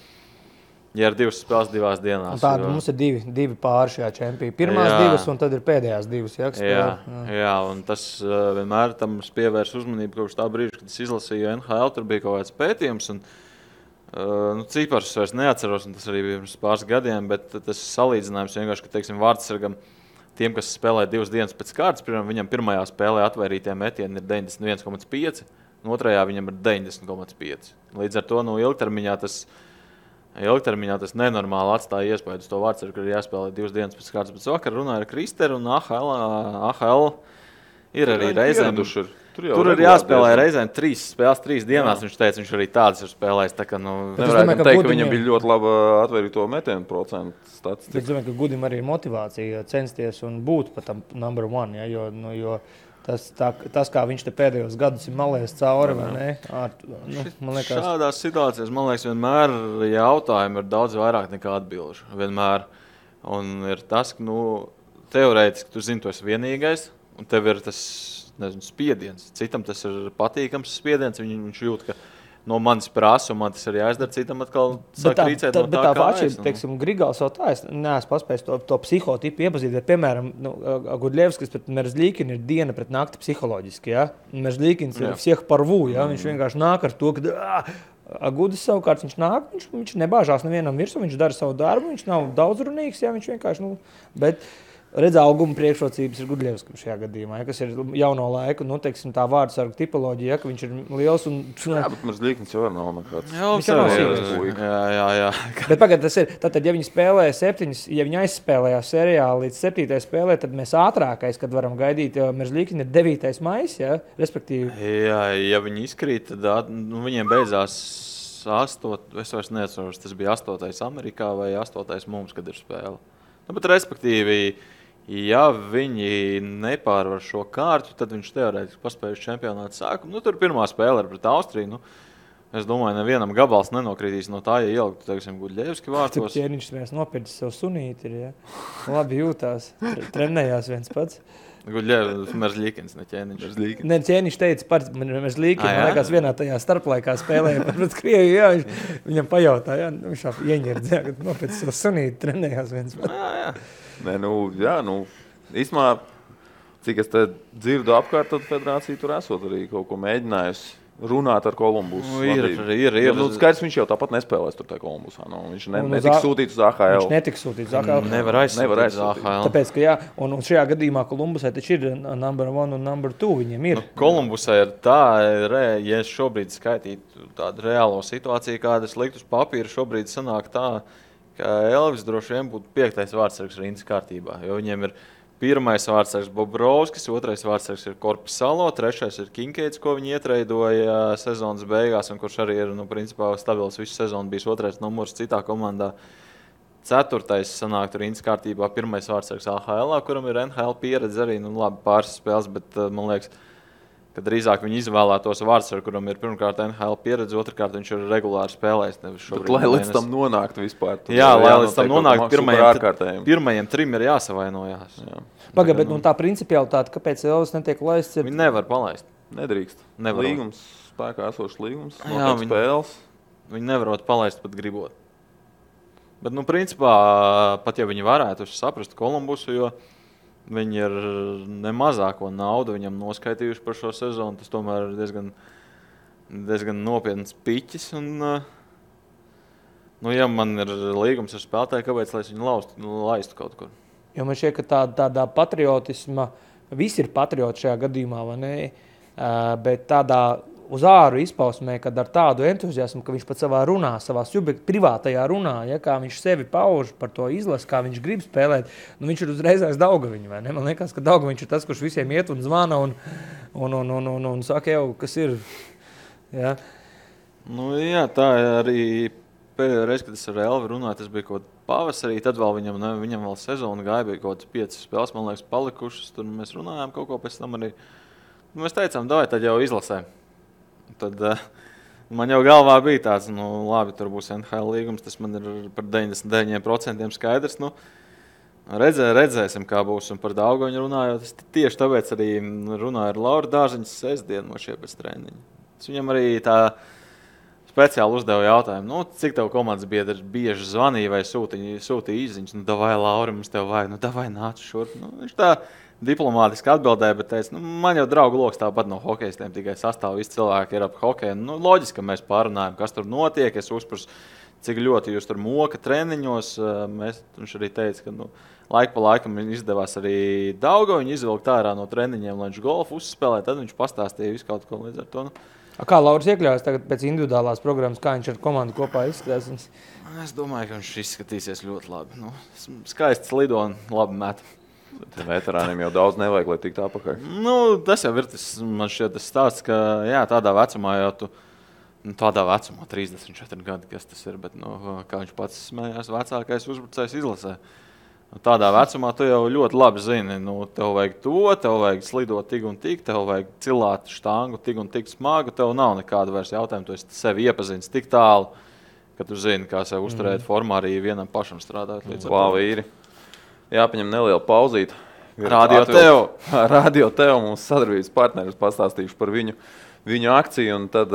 Speaker 3: ja ir 2 spēles 2 dienās.
Speaker 2: Tāda mums ir divi pāri šajā čempionā. Pirmās 2 un tad ir pēdējās 2.
Speaker 3: Jā, un tas vienmēr tam pievērs uzmanību kopš tā brīža, kad es izlasīju NHL, tur bija kaut kāds pētījums. Un, cipars vairs neatceros, un tas arī bija pirms pāris gadiem, bet tas salīdzinājums vienkārši, ka, teiksim, vārdsargam tiem, kas spēlē 2 dienas pēc kārtas, piemēram, viņam pirmajā spēlē atvairītie metieni ir 91,5, un otrajā viņam ir 90,5. Līdz ar to ilgtermiņā tas nenormāli atstāja iespēju uz to vārdsargu, ka ir jāspēlē 2 dienas pēc kārtas. Bet vakar runāja ar Kristeru, un AHL ir arī reizēm. Tur ir jāspēlē reizēm 3 spēles 3 dienās. Viņš teica, viņš arī tādas ir spēlējis. Tā kā,
Speaker 1: nevarētu teikt, ka viņam bija ļoti laba atvērīto metienu procentu statistika.
Speaker 2: Es domāju, ka Gudim arī ir motivācija censties un būt pat tam number 1, ja, jo tas, kā viņš te pēdējos gadus ir malējis cauri, vai ne? Man liekas...
Speaker 3: Šādās situācijās, man liekas, vienmēr jautājumi ir daudz vairāk nekā atbilžu. Vienmēr. Un ir tas, ka, teorētiski tu zini, tu esi vienīgais, un tev ir tas, spiediens. Citam tas ir patīkams spiediens, viņš jūt, ka no manis prasa, un man tas ir jāizdara, citam atkal sāk rīcēt no tā, kā
Speaker 2: atšķirība, teiksim, Grigals vēl tā, es neesmu paspējis to psihotipu iepazīt, bet, piemēram, Gudļevskis pret Merzlīkinu ir diena pret nakti psiholoģiski, ja? Merzlīkins ir всех порву, ja? Viņš vienkārši nāk ar to, ka Gudis savukārt viņš nāk, viņš nebāžās nevienam virsū, viņš dara savu darbu, viņš nav daudzrunīgs, ja? Viņš vienkārši, bet... Redz, auguma priekšrocības ir Gudļevskim šajā gadījumā, kas ir jauno laiku, teiksim, tā vārdsargu tipoloģija, ka viņš ir liels un...
Speaker 1: Jā, bet Merzlīkins jau nav nekāds.
Speaker 2: Viņš jau nav sīvs.
Speaker 3: Jā.
Speaker 2: Bet pagad, tas ir, tātad, ja viņi spēlē 7, ja viņi aizspēlējās serijā līdz 7. spēlē, tad mēs ātrākais, kad varam gaidīt, jo Merzlīkina ir 9. maijs, ja, respektīvi.
Speaker 3: Jā, ja viņi izkrīt, tad viņiem beidzās 8, es vairs neatceros, tas bija 8. Amerikā vai 8. mums, kad ir spēle. Bet respektīvi, ja viņi nepārvar šo kārtu, tad viņš teorētiski paspēja uz čempionātu sākumu. Tur pirmā spēle ir pret Austriju. Es domāju, nevienam gabals nenokritīs no tā, ja ieliktu, teiksim, Gudļevski vārtos.
Speaker 2: Ķēniņš mēs nopircis sev sunīti, ja. Labi jūtās, trenējās viens pats.
Speaker 3: Merzlīkins, ne Ķēniņš.
Speaker 2: Ne, Ķēniņš teica par Merzlīkinu, man liekas, vienā tajā starplaikā spēlēja pret Krieviju, jā, viņam pajautāja, viņš ieņirdzēja, kad nopircis sev sunīti, trenējās viens pats.
Speaker 3: Jā.
Speaker 1: Nē, īstumā, cik es te dzirdu apkārt, tad federācija tur esot arī kaut ko mēģinājusi runāt ar Kolumbusu.
Speaker 3: Ir.
Speaker 1: Nu, skaidrs, viņš jau tāpat nespēlēs tur tajā Kolumbusā. Nu, viņš netiks sūtīts uz AHL.
Speaker 2: Viņš netiks sūtīts uz AHL.
Speaker 3: Nevar aizsūtīt uz AHL.
Speaker 2: Tāpēc, ka jā, un šajā gadījumā Kolumbusai taču ir number 1 un number 2. Viņiem ir.
Speaker 3: Kolumbusai ir tā, ja es šobrīd skaitītu tādu reālo situāciju, kāda es liktu uz papīra, šobrīd sanāk tā, ka Elvis droši vien būtu 5. vārdsargs rindas kārtībā, jo viņiem ir 1. vārdsargs Bobrovskis, 2. vārdsargs ir Korpisalo, 3. ir Kinkeits, ko viņi ietreidoja sezonas beigās, un kurš arī ir, principā, stabils visu sezonu, bijis 2. numurs citā komandā. 4. sanāk rindas kārtībā 1. vārdsargs AHL, kuram ir NHL pieredze arī, labi pāris spēles, bet man liekas, ka drīzāk viņi izvēlētos vārdsargu, kuram ir pirmkārt NHL pieredze, otrkārt viņš ir regulāri spēlējis.
Speaker 1: Lai līdz tam nonāktu vispār.
Speaker 3: Jā, lai līdz tam nonāktu pirmajiem 3 ir jāsavainojās.
Speaker 2: Pagaid, bet tā principialitāte, kāpēc Elvis netiek laists?
Speaker 3: Viņi nevar palaist.
Speaker 1: Nedrīkst. Līgums, spēkā esošs līgums,
Speaker 3: spēles. Viņi nevarot palaist pat gribot. Bet, principā, pat ja viņi varētu saprast Kolumbusu, jo viņi ir nemazāko naudu viņam noskaitījuši par šo sezonu. Tas tomēr ir diezgan nopietns piķis. Un, ja man ir līgums ar spēlētāju, kāpēc lai es viņu laistu kaut kur?
Speaker 2: Jo man šķiet, ka tādā patriotisma, visi ir patrioti šajā gadījumā, vai ne? Bet tādā uz āru izpausmē, kad ar tādu entuziasmu, ka viņš pat savā runā, savā privātajā runā, ja, kā viņš sevi pauž par to izlasi, kā viņš grib spēlēt, viņš ir uzreizais Daugaviņš, vai ne? Man liekas, ka Daugaviņš ir tas, kurš visiem iet un zvana un saka jau, kas ir. Ja.
Speaker 3: Jā, tā arī pēdējā reize, kad es ar Elvi runāju, tas bija kaut pavasarī, tad vēl viņam vēl sezona gāja, bija kaut 5 spēles, man liekas, palikušas, tur mēs runājām kaut ko pēc tam arī. Mēs teicām, davai, tad jau izlasē. Tad man jau galvā bija tāds, labi, tur būs NHL līgums, tas man ir par 99% skaidrs. Redzēsim, kā būs. Un par Daugaviņu runājot, es tieši tāpēc arī runāju ar Lauru Dārziņu sestdienu no šie pēc treniņa. Es viņam arī tā speciāli uzdevu jautājumu, cik tev komandas biedri bieži zvanīja vai sūtīja izziņas. Davai, Lauri, mums tev vajag, davai nāc šurp. Viņš tā diplomātiski atbildēja, bet teica, man jau draugu loks tāpat no hokejistiem, tikai sastāv visi cilvēki ir ap hokeju. Loģiski, ka mēs pārunājam, kas tur notiek, es uzprasu, cik ļoti jūs tur moka treniņos. Viņš arī teica, ka laika pa laikam izdevās arī Daugaviņu izvilkt ārā no treniņiem, lai viņš golfu uzspēlē, tad viņš pastāstīja visu kaut ko līdz ar to.
Speaker 2: Kā Lauris iekļaujas tagad pēc individuālās programmas, kā viņš ar komandu kopā izskatās?
Speaker 3: Es domāju, ka viņš izskatīsies ļoti labi. Skaists lido un labi met.
Speaker 1: Veterāniem jau daudz nevajag, lai tiktu apakaļ.
Speaker 3: Tas jau ir man šķiet tas stāsts, ka jā, tādā vecumā jau tu, tādā vecumā 34 gadi, kas tas ir, bet kā viņš pats smējās, vecākais uzbrucējs izlasē. Tādā vecumā tu jau ļoti labi zini, tev vajag to, tev vajag slidot tik un tik, tev vajag cilāt štangu tik un tik smagu, tev nav nekāda vairs jautājuma, tu esi sevi iepazīstis tik tālu, ka tu zini, kā sev uzturēt formā arī vienam pašam strādāt.
Speaker 1: Vīri. Jāpaņem neliela pauzīte.
Speaker 3: Radio
Speaker 1: Tev mums sadarbības partneris pastāstīšu par viņu akciju, un tad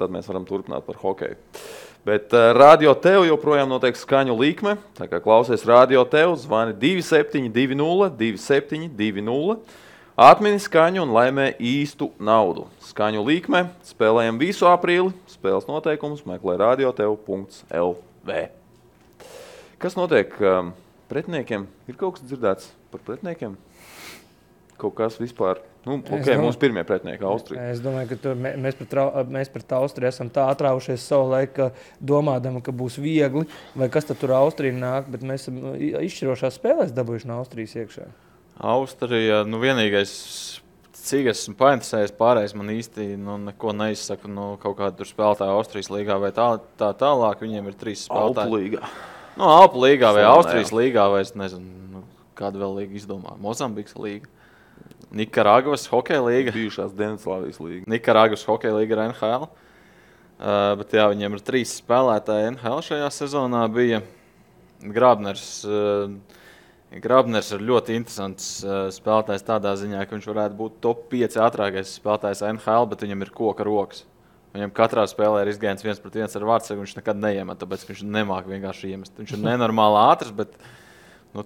Speaker 1: mēs varam turpināt par hokeju. Bet Radio Tev joprojām notiek skaņu līkme, tā kā klausies Radio Tev, zvani 2720 2720, atmini skaņu un laimē īstu naudu. Skaņu līkme, spēlējam visu aprīli, spēles noteikumus meklē radiotev.lv. Kas notiek pretiniekiem? Ir kaut kas dzirdēts par pretiniekiem? Kaut kas vispār? Mūsu pirmie pretinieki Austrija.
Speaker 2: Es domāju, ka mēs pret Austriju esam tā atraušies savu laiku, domādami, ka būs viegli, vai kas tad tur Austrija nāk, bet mēs esam izšķirošās spēlēs dabūjuši no Austrijas iekšā.
Speaker 3: Austrija, vienīgais, cik esmu painteresējies, pārējais man īsti neko neizsaka, kaut kādu tur spēlētāju Austrijas līgā vai tā tālāk, viņiem ir 3 spēlētāji.
Speaker 1: Alpu līgā.
Speaker 3: Alpu līgā vai Austrijas līgā, vai es nezinu, kādu vēl līgu izdomā. Mozambikas līga. Nikaragvas hokeja līga.
Speaker 1: Bijušās Dienvidslāvijas līga.
Speaker 3: Nikaragvas hokeja līga ir NHL. Bet jā, viņiem ir 3 spēlētāji NHL šajā sezonā bija. Grabners ir ļoti interesants spēlētājs tādā ziņā, ka viņš varētu būt top 5 ātrākais spēlētājs NHL, bet viņam ir koka rokas. Viņam katrā spēlē ir izgājiens 1-1 ar vārdsargu, viņš nekad neiemet, tāpēc viņš nemāk vienkārši iemest. Viņš ir nenormāli ātrs, bet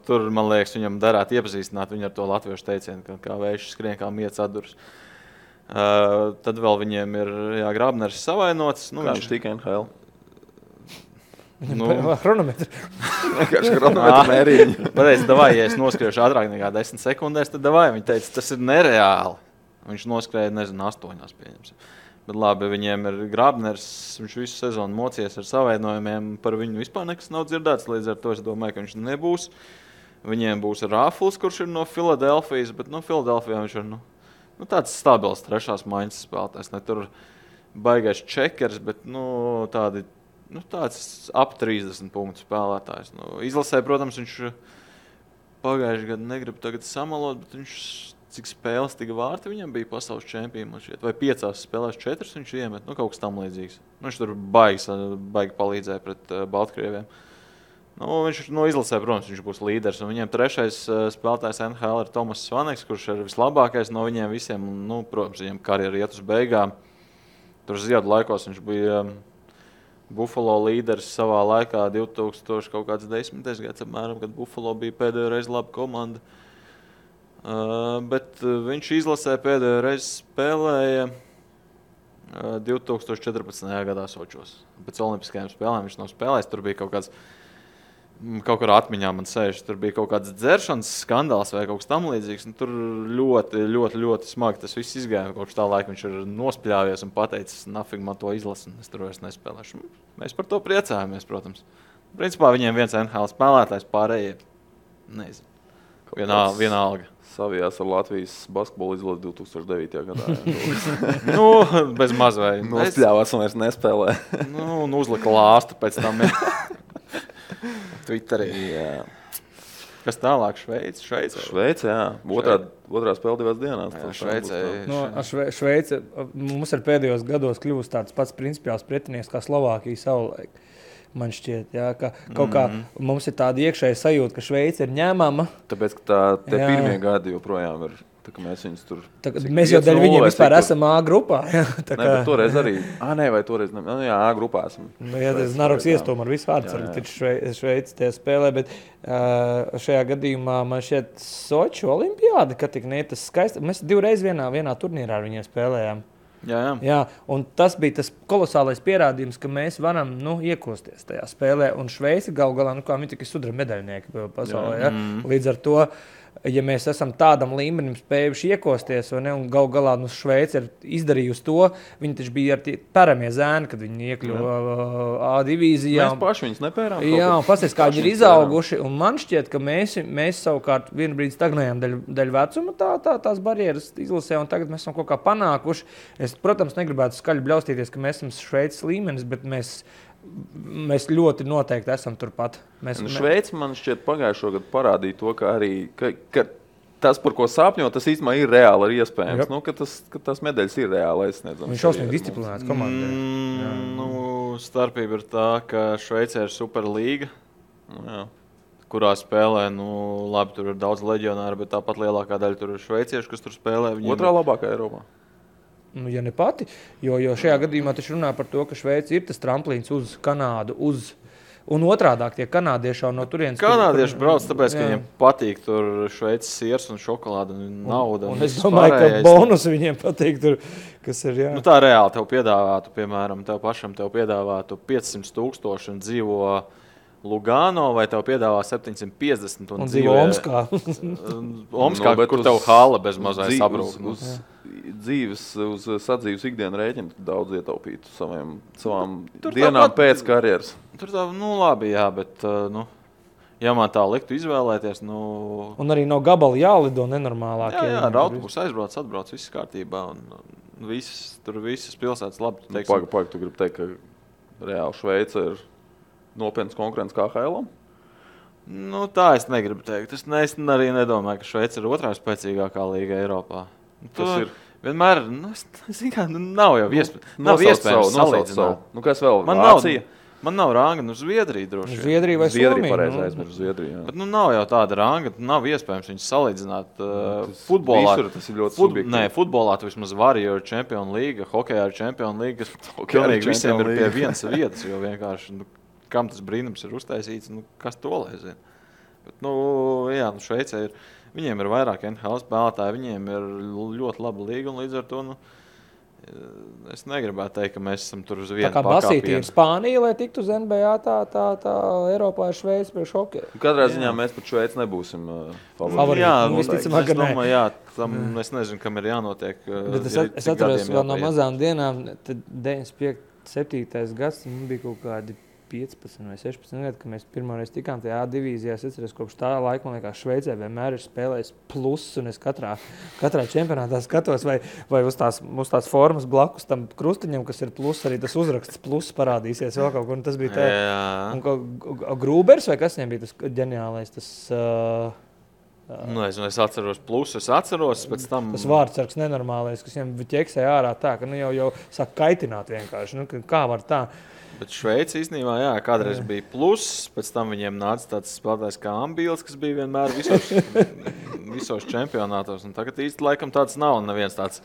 Speaker 3: tur, man liekas, viņam darētu iepazīstināt viņu ar to latviešu teicienu, kā vējš skrien, kā miets atdurs. Tad vēl viņiem ir Grābners savainots.
Speaker 1: Nu, viņš tika NHL.
Speaker 2: Chronometru.
Speaker 1: Vienkārši chronometru mērīņu.
Speaker 3: Pateicu, davai, ja es noskriešu ātrāk nekā 10 sekundēs, tad davai. Viņi teica, tas ir nereāli. Viņš noskrēja, 8 pieņemsim. Bet labi, viņiem ir Grābners, viņš visu sezonu mocies ar savainojumiem, par viņu vispār nekas nav dzirdēts, līdz ar to es domāju, ka viņš nebūs. Viņiem būs Rāfls, kurš ir no Filadelfijas, bet Filadelfijā viņš ir tāds stabils trešās maiņas spēlētājs. Ne tur baigais čekers, bet tāds ap 30 punktu spēlētājs. Izlasē, protams, viņš pagājuši gadu negrib tagad samalot, bet viņš cik spēles, tik vārti viņam bija pasaules čempioni. Vai 5 spēlēs 4 viņš iemet, kaut kas tam līdzīgs. Viņš tur baigi palīdzēja pret Baltkrieviem. Viņš izlasē, protams, viņš būs līderis. Un viņiem trešais spēlētājs NHL ir Tomas Svaneks, kurš ir vislabākais no viņiem visiem. Protams, viņam karjera iet uz beigām. Tur ziedu laikos viņš bija Buffalo līderis savā laikā 2010. gads apmēram, kad Buffalo bija pēdējo reizi laba komanda. Bet viņš izlasē pēdējo reizi spēlēja 2014. gadā Sočos. Pēc olimpiskajām spēlēm viņš nav spēlējis. Tur bija kaut kur atmiņā man sēž, tur bija kaut kāds dzeršanas skandāls vai kaut kas tam līdzīgs. Tur ļoti smagi tas viss izgāja. Kopš tā laika viņš ir nospļāvies un pateicis, nafig man to izlasu, es tur vairs nespēlēšu. Mēs par to priecājamies, protams. Principā viņiem viens NHL spēlētājs, pārējie, nezinu, vienalga.
Speaker 1: Savijās ar Latvijas basketbolu izlasi 2009. gadā.
Speaker 3: Bez maz vai.
Speaker 1: Nospļāvās un vairs nespēlē.
Speaker 3: Un uzlika lāstu pēc tam. Twitterī.
Speaker 1: Jā.
Speaker 3: Kas tālāk? Šveice,
Speaker 1: jā. Otrā spēle 2 dienās.
Speaker 2: Šveice mums ir pēdējos gados kļuvusi tāds pats principiāls pretinieks kā Slovākija savulaik. Man šķiet, jā, ka kaut kā mums ir tāda iekšēja sajūta, ka Šveice ir ņēmama.
Speaker 1: Tāpēc, ka tie pirmie gadi joprojām ir, tā kā mēs viņus tur...
Speaker 2: Mēs jau dēļ viņiem vispār esam A grupā.
Speaker 1: Bet toreiz arī, vai toreiz ne, A grupā esam.
Speaker 2: Tas Naroks iestūma ar visu vārdsargu, taču Šveice tie spēlē, bet šajā gadījumā man šķiet Soču olimpiāda, ka tik ne tas skaisti. Mēs 2 reizes vienā turnīrā ar viņiem spēlējām. Jā, un tas bija tas kolosālais pierādījums, ka mēs varam iekosties tajā spēlē. Un Šveice galu galā, kā viņi tikai sudraba medaļnieki pasaulē. Ja? Līdz ar to, ja mēs esam tādam līmenim spējuši iekosties, un galu galā Šveice ir izdarījusi to, viņi taču bija ar tie paramie zēni, kad viņi iekļuva A divīzijā.
Speaker 1: Mēs paši viņus nepērām.
Speaker 2: Jā, un pasties, kā viņi ir izauguši, un man šķiet, ka mēs savukārt vienu brīdi stagnējām daļu vecuma tās barjeras izlasē, un tagad mēs esam kaut kā panākuši. Es, protams, negribētu skaļi bļaustīties, ka mēs esam Šveices līmenis, bet mēs ļoti noteikti esam turpat.
Speaker 1: Šveice man šķiet pagājušo gadu parādīja to, ka arī ka tas, par ko sapņo, tas īstenībā ir reāli, ir iespējams. Ka tas medaļas ir reāli aizsniedzams.
Speaker 2: Viņš šausmīgi disciplinēts komandai.
Speaker 3: Starpība ir tā, ka Šveicē ir Superlīga, kurā spēlē, labi, tur ir daudz leģionāru, bet tāpat lielākā daļa tur ir šveicieši, kas tur spēlē.
Speaker 1: Otrā labākā Eiropā.
Speaker 2: Ja ne pati, jo šajā gadījumā taču runā par to, ka Šveice ir tas tramplīns uz Kanādu, un otrādāk tie kanādieši no turienes.
Speaker 3: Kanādieši brauc, tāpēc, ka viņiem patīk tur Šveices siers un šokolāde un nauda.
Speaker 2: Un es domāju, ka bonus viņiem patīk tur, kas ir, jā.
Speaker 3: Tā reāli tev piedāvātu, piemēram, tev pašam piedāvātu 500,000 un dzīvo Lugano, vai tev piedāvā 750 un
Speaker 2: dzīvo Omskā.
Speaker 3: Omskā, kur tev hala bez mazai sabrūk.
Speaker 1: Uz sadzīves ikdienu rēķinu daudz ietaupītu savām dienām pēc karjeras.
Speaker 3: Tur tā, labi, jā, bet, ja man tā liktu izvēlēties,
Speaker 2: Un arī no gabala jālido nenormālāk.
Speaker 3: Jā, ar autobusu atbrauc, viss kārtībā, un visas pilsētas labi.
Speaker 1: Pagaid, tu gribi teikt, ka reāli Šveice ir nopietnas konkurence kā HL-am?
Speaker 3: Tā es negribu teikt. Es arī nedomāju, ka Šveice ir otrā spēcīgākā līga Eiropā. Tas ir vienmēr, nav jau iespējams salīdzināt.
Speaker 1: Kas vēl? Vācija?
Speaker 3: Man nav ranga, Zviedrija droši.
Speaker 2: Zviedrija vai
Speaker 1: Somija? Pareizi aizmirst Zviedriju.
Speaker 3: Bet nav jau tāda ranga, nav iespējams viņus salīdzināt. Futbolā
Speaker 1: tas ir ļoti subjektīvi.
Speaker 3: Nē, futbolā tu vismaz vari, jo ir Champions League, hokejā ir Champions League, kas pilnīgi visiem ir pie vienas vietas, jo vienkārši, kam tas brīnums ir uztaisīts, kas to lai zina. Bet, Šveicē ir. Viņiem ir vairāk NHL spēlētāji, viņiem ir ļoti laba līga un līdz ar to, es negribētu teikt, ka mēs esam tur uz vienu pakāpienu.
Speaker 2: Tā kā Basīti ir Spānija, lai tiktu uz NBA, tā Eiropā ir Šveice priekš hokeja.
Speaker 1: Katrā ziņā mēs pat Šveici nebūsim
Speaker 2: favorīti.
Speaker 3: Jā,
Speaker 2: visticamāk,
Speaker 3: es domāju, jā, es nezinu, kam ir jānotiek.
Speaker 2: Bet es atceros vēl no mazām dienām, tad 95. 7. gads, mums bija kaut kādi 15 vai 16 gadi, kad mēs pirmoreiz tikām tajā A divīzijā. Es atceros, kopš tā laika, man liekas, Šveicē vienmēr ir spēlējis plus, un es katrā čempionātā skatos, vai uz tās formas blakus tam krustiņam, kas ir plus, arī tas uzraksts plus parādīsies vēl kaut kur. Un tas bija tā. Un Grūbers vai kas viņam bija tas ģeniālais, tas...
Speaker 3: Es atceros plusus, pēc tam...
Speaker 2: Tas vārdsargs nenormālais, kas viņam ķeksēja ārā tā, ka jau sāk kaitināt vienkārši. Kā var tā?
Speaker 3: Bet Šveice īstenībā, kādreiz bija pluss, pēc tam viņiem nāca tāds spēlētājs kā Ambīls, kas bija vienmēr visos čempionātos. Un tagad īsti laikam tāds nav, un neviens tāds,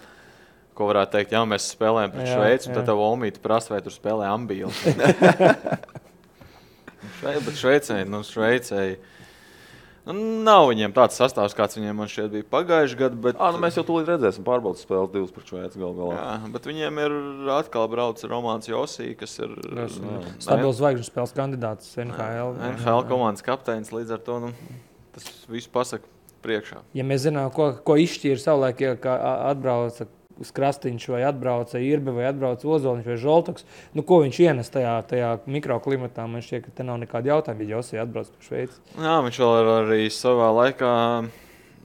Speaker 3: ko varētu teikt, mēs spēlējam pret Šveici, un tad tev Olmīti prasa, vai tur spēlē Ambīls. Bet Šveicei... Nav viņiem tāds sastāvs, kāds viņiem man šeit bija pagājuši gadu, bet...
Speaker 1: Mēs jau tūlīt redzēsim pārbaudas spēles 2 pret Šveici galā.
Speaker 3: Jā, bet viņiem ir atkal brauc Romāns Josī, kas ir...
Speaker 2: Stabils zvaigžņu spēles kandidāts NHL.
Speaker 3: NHL komandas kapteinis, līdz ar to tas viss pasaka priekšā.
Speaker 2: Ja mēs zinām, ko izšķīra savulaik, ja atbrauca Krastīņš vai atbrauca Irbe vai atbrauca Ozoliņš vai Žoltoks, ko viņš ienes tajā mikroklimatā? Man šķiet, ka te nav nekāda jautājuma, ja Josī atbrauc par Šveici.
Speaker 3: Jā, viņš vēl arī savā laikā